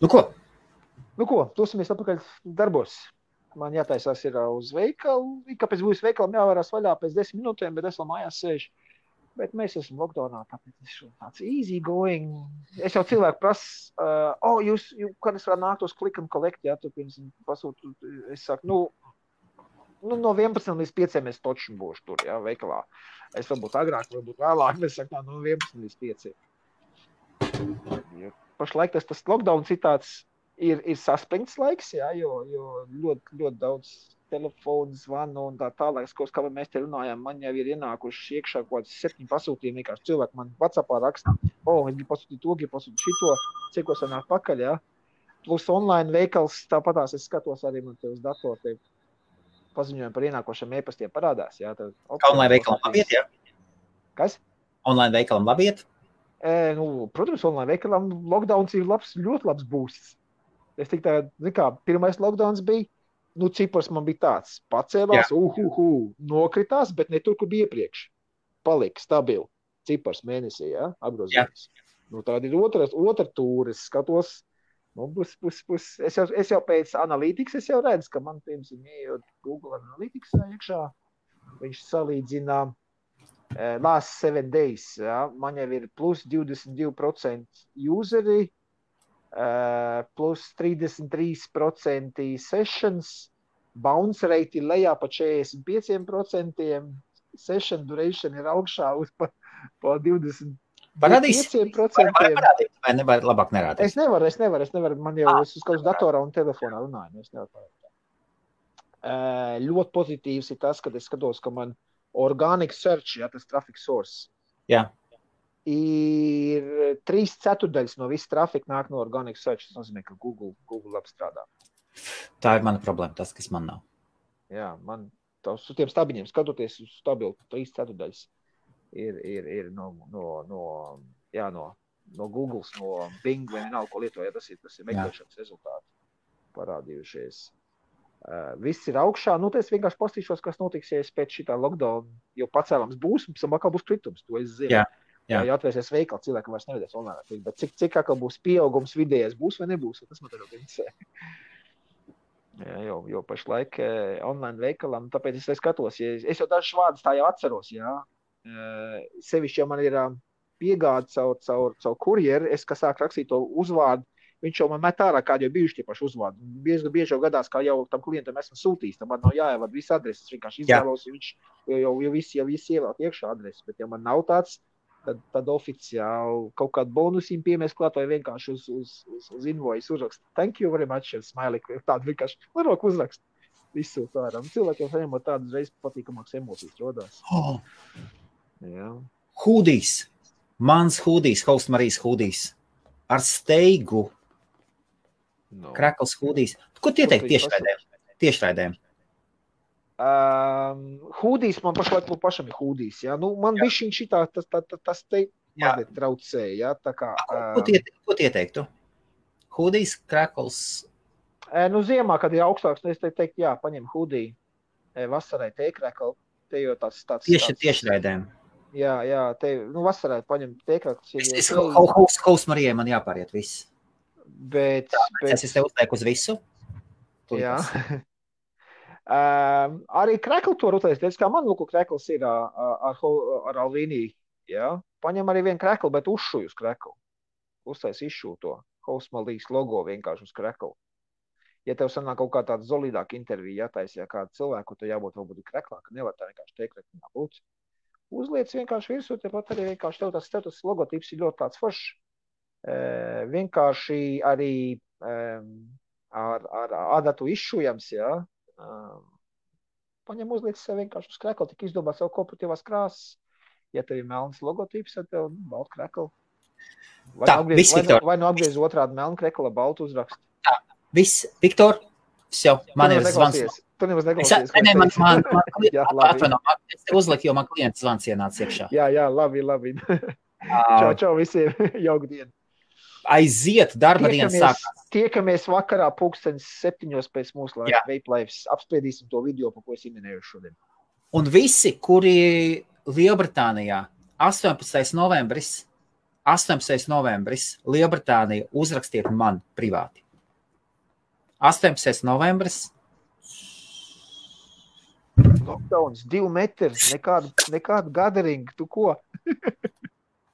Ko, dosimies atpakaļ darbos. Man jātaisās ir uz veikalu. Kāpēc būs veikalam jāvarās vaļā pēc 10 minūtēm, bet es vēl mājās sēžu. Bet mēs esam lockdownā, tāpēc es tāds easy going. Es jau cilvēku prasu, jūs, kad es varu nākt uz click and collect, tu pirms pasūtu, es saku, no 11 līdz 5 es toču būšu tur, veikalā. Es varbūt agrāk, varbūt vēlāk, bet es saku, no 11 līdz 5. Pašlaik tas lockdown citāds ir saspringts laiks, jo ļoti, ļoti daudz telefonu zvanu un tā tālāk, kā mēs te runājām, man jau ir ienākuši iekšā kaut kāds 7 pasūtījumi, vienkārši cilvēki man WhatsAppā raksta, es gribu pasūtīt to, gribu pasūtīt šito, cikos var nāk pakaļ, Plus online veikals, tāpatās es skatos arī man te uz datoru, paziņojumi par ienākošiem e-pastiem parādās, Online veikalam labiet, Kas? Online veikalam labiet? Protams, online veikalam lockdowns ir ļoti labs boosts. Es tik tā, pirmais lockdowns bija, cipars man bija tāds, pacēlās, nokritās, bet ne tur, kur bija iepriekš. Palika stabili, cipars mēnesī, apgrozījums. Tāda ir otra tūra, es skatos, es jau pēc analītikas, es jau redzu, ka man, piemēram, ejot Google Analytics iekšā, viņš salīdzina last 7 days, man jau ir plus 22% useri, plus 33% sessions, bounce rate ir lejā pa 45%, session duration ir augšā uz pa 20%. Parādīs, vai nevar labāk nerādīt? Es nevaru, man jau es uz kaut datorā un telefonā runāju, es nevaru parādīt. Ļoti pozitīvs ir tas, kad es skatos, ka man organic search, tas traffic source, ir 3/4 no visu trafiku nāk no organic search. Tas nozīmē, ka Google apstrādā. Tā ir mana problēma, tas, kas man nav. Jā, man uz tiem stabiņiem skatoties uz stabilu 3/4 ir no Googles, no Bing vai vienalga, ko lietoja, tas ir meklēšanas rezultāti parādījušies. Viss ir augšā, es vienkārši pastīšos, kas notiks, ja es pēc šitā lockdown jau pacēlams būs, un pēc tam atkal būs kritums, to es zinu. Ja atvērsies veikali, cilvēki vairs nevedēs online, bet cik atkal būs pieaugums vidējais, būs vai nebūs, tas man tagad interesē. Jo pašlaik online veikalam, tāpēc es skatos, es jau dažus vārdus tā jau atceros, sevišķi, ja man ir piegāde caur kurjeru, es, kas sāk rakstīt to uzvārdu, viņš jau man met ārā, kādi jau bijuši tie paši uzvārdi. Bieži jau gadās, kā jau tam klientam esmu sūtījis, tam man nav jāievad visu adresi, es vienkārši izvēlos, viņš jau visi ievēl iekšā adresi, bet ja man nav tāds, tad oficiāli kaut kādu bonusiņu piemēs klāt vai vienkārši uz invoice uzrakst. Thank you very much, smiley, tādu vienkārši varok uzrakst. Visu tāram. Cilvēkiem saņemot tādas reizes patīkamākas emocijas rodās. Hūdīs. Mans hūdīs, Host Marijas hūdīs. Ar steigu. Krakls hūdīs. Ko tie teikt tiešraidēm? Hūdīs, man pašlaik pašam ir hūdīs. Man bišķiņ šitā, tas te mazliet traucēja. Ko tie teiktu? Hūdīs, krakls? Ziemā, kad ir augstāks, es teiktu, paņem hūdī. Vasarai te krakli, te jau tāds. Tiešraidēm. Jā, te, vasarā paņem tēkrāklis. Haus Marijai man jāpāriet viss. Bet... Es tev uzteiku uz visu. Jā. Arī krekli to rutēs. Teic, kā man lūku kreklis ir ar Alvīniju. Jā. Paņem arī vienu krekli, bet uzšuj uz krekli. Uztais izšū to. Hausmalīs logo vienkārši uz krekli. Ja tev sanāk kaut kā tāda zolīdāka intervija jātaisa, ja kādu cilvēku, tad jābūt varbūt kreklāk, nevar tā vienkārši tēkrekli būt. Uzliec vienkārši virsū, tepat arī vienkārši tev tas logotips ir ļoti tāds foršs. Vienkārši arī ar adatu izšujams, jā. Paņem uzliec sev vienkārši uz krekli, tik izdomā savu korporatīvās krāsas. Ja tev ir melns logotips, tad tev baltu krekli. Vai nu apgriez otrādi melnu krekli, baltu uzrakstu. Tā, viss, Viktor, jau, man ir zvans. Tu nemaz neklausies. Es te uzliku, jo man klients zvans ienāca iekšā. Jā, labi. Čau visiem, jauku dienu. Aiziet, darba dienas sākās. Tiekamies vakarā 7:00 pēc mūsu laika Vape Lives. Apspriedīsim to video, pa ko es minēju šodien. Un visi, kuri Lielbritānijā 18. novembris Lielbritānija uzrakstiet man privāti. 18. novembris. Lockdowns, 2 metri, nekādu gathering, tu ko?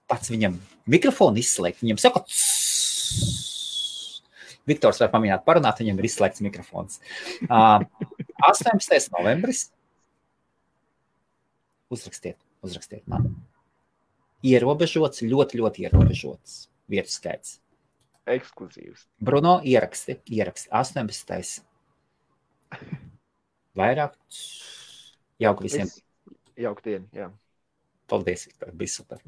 Pats viņam mikrofonu izslēgt, viņam saka, Viktors var pamēģināt parunāt, viņam ir izslēgts mikrofons. 18. novembris. Uzrakstiet man. Ierobežots, ļoti ierobežots vietu skaits. Ekskluzīvs. Bruno, ieraksti. 18. Vairāk. Jauku visiem. Jauku dienu, jā. Paldies, Viktor, bija super.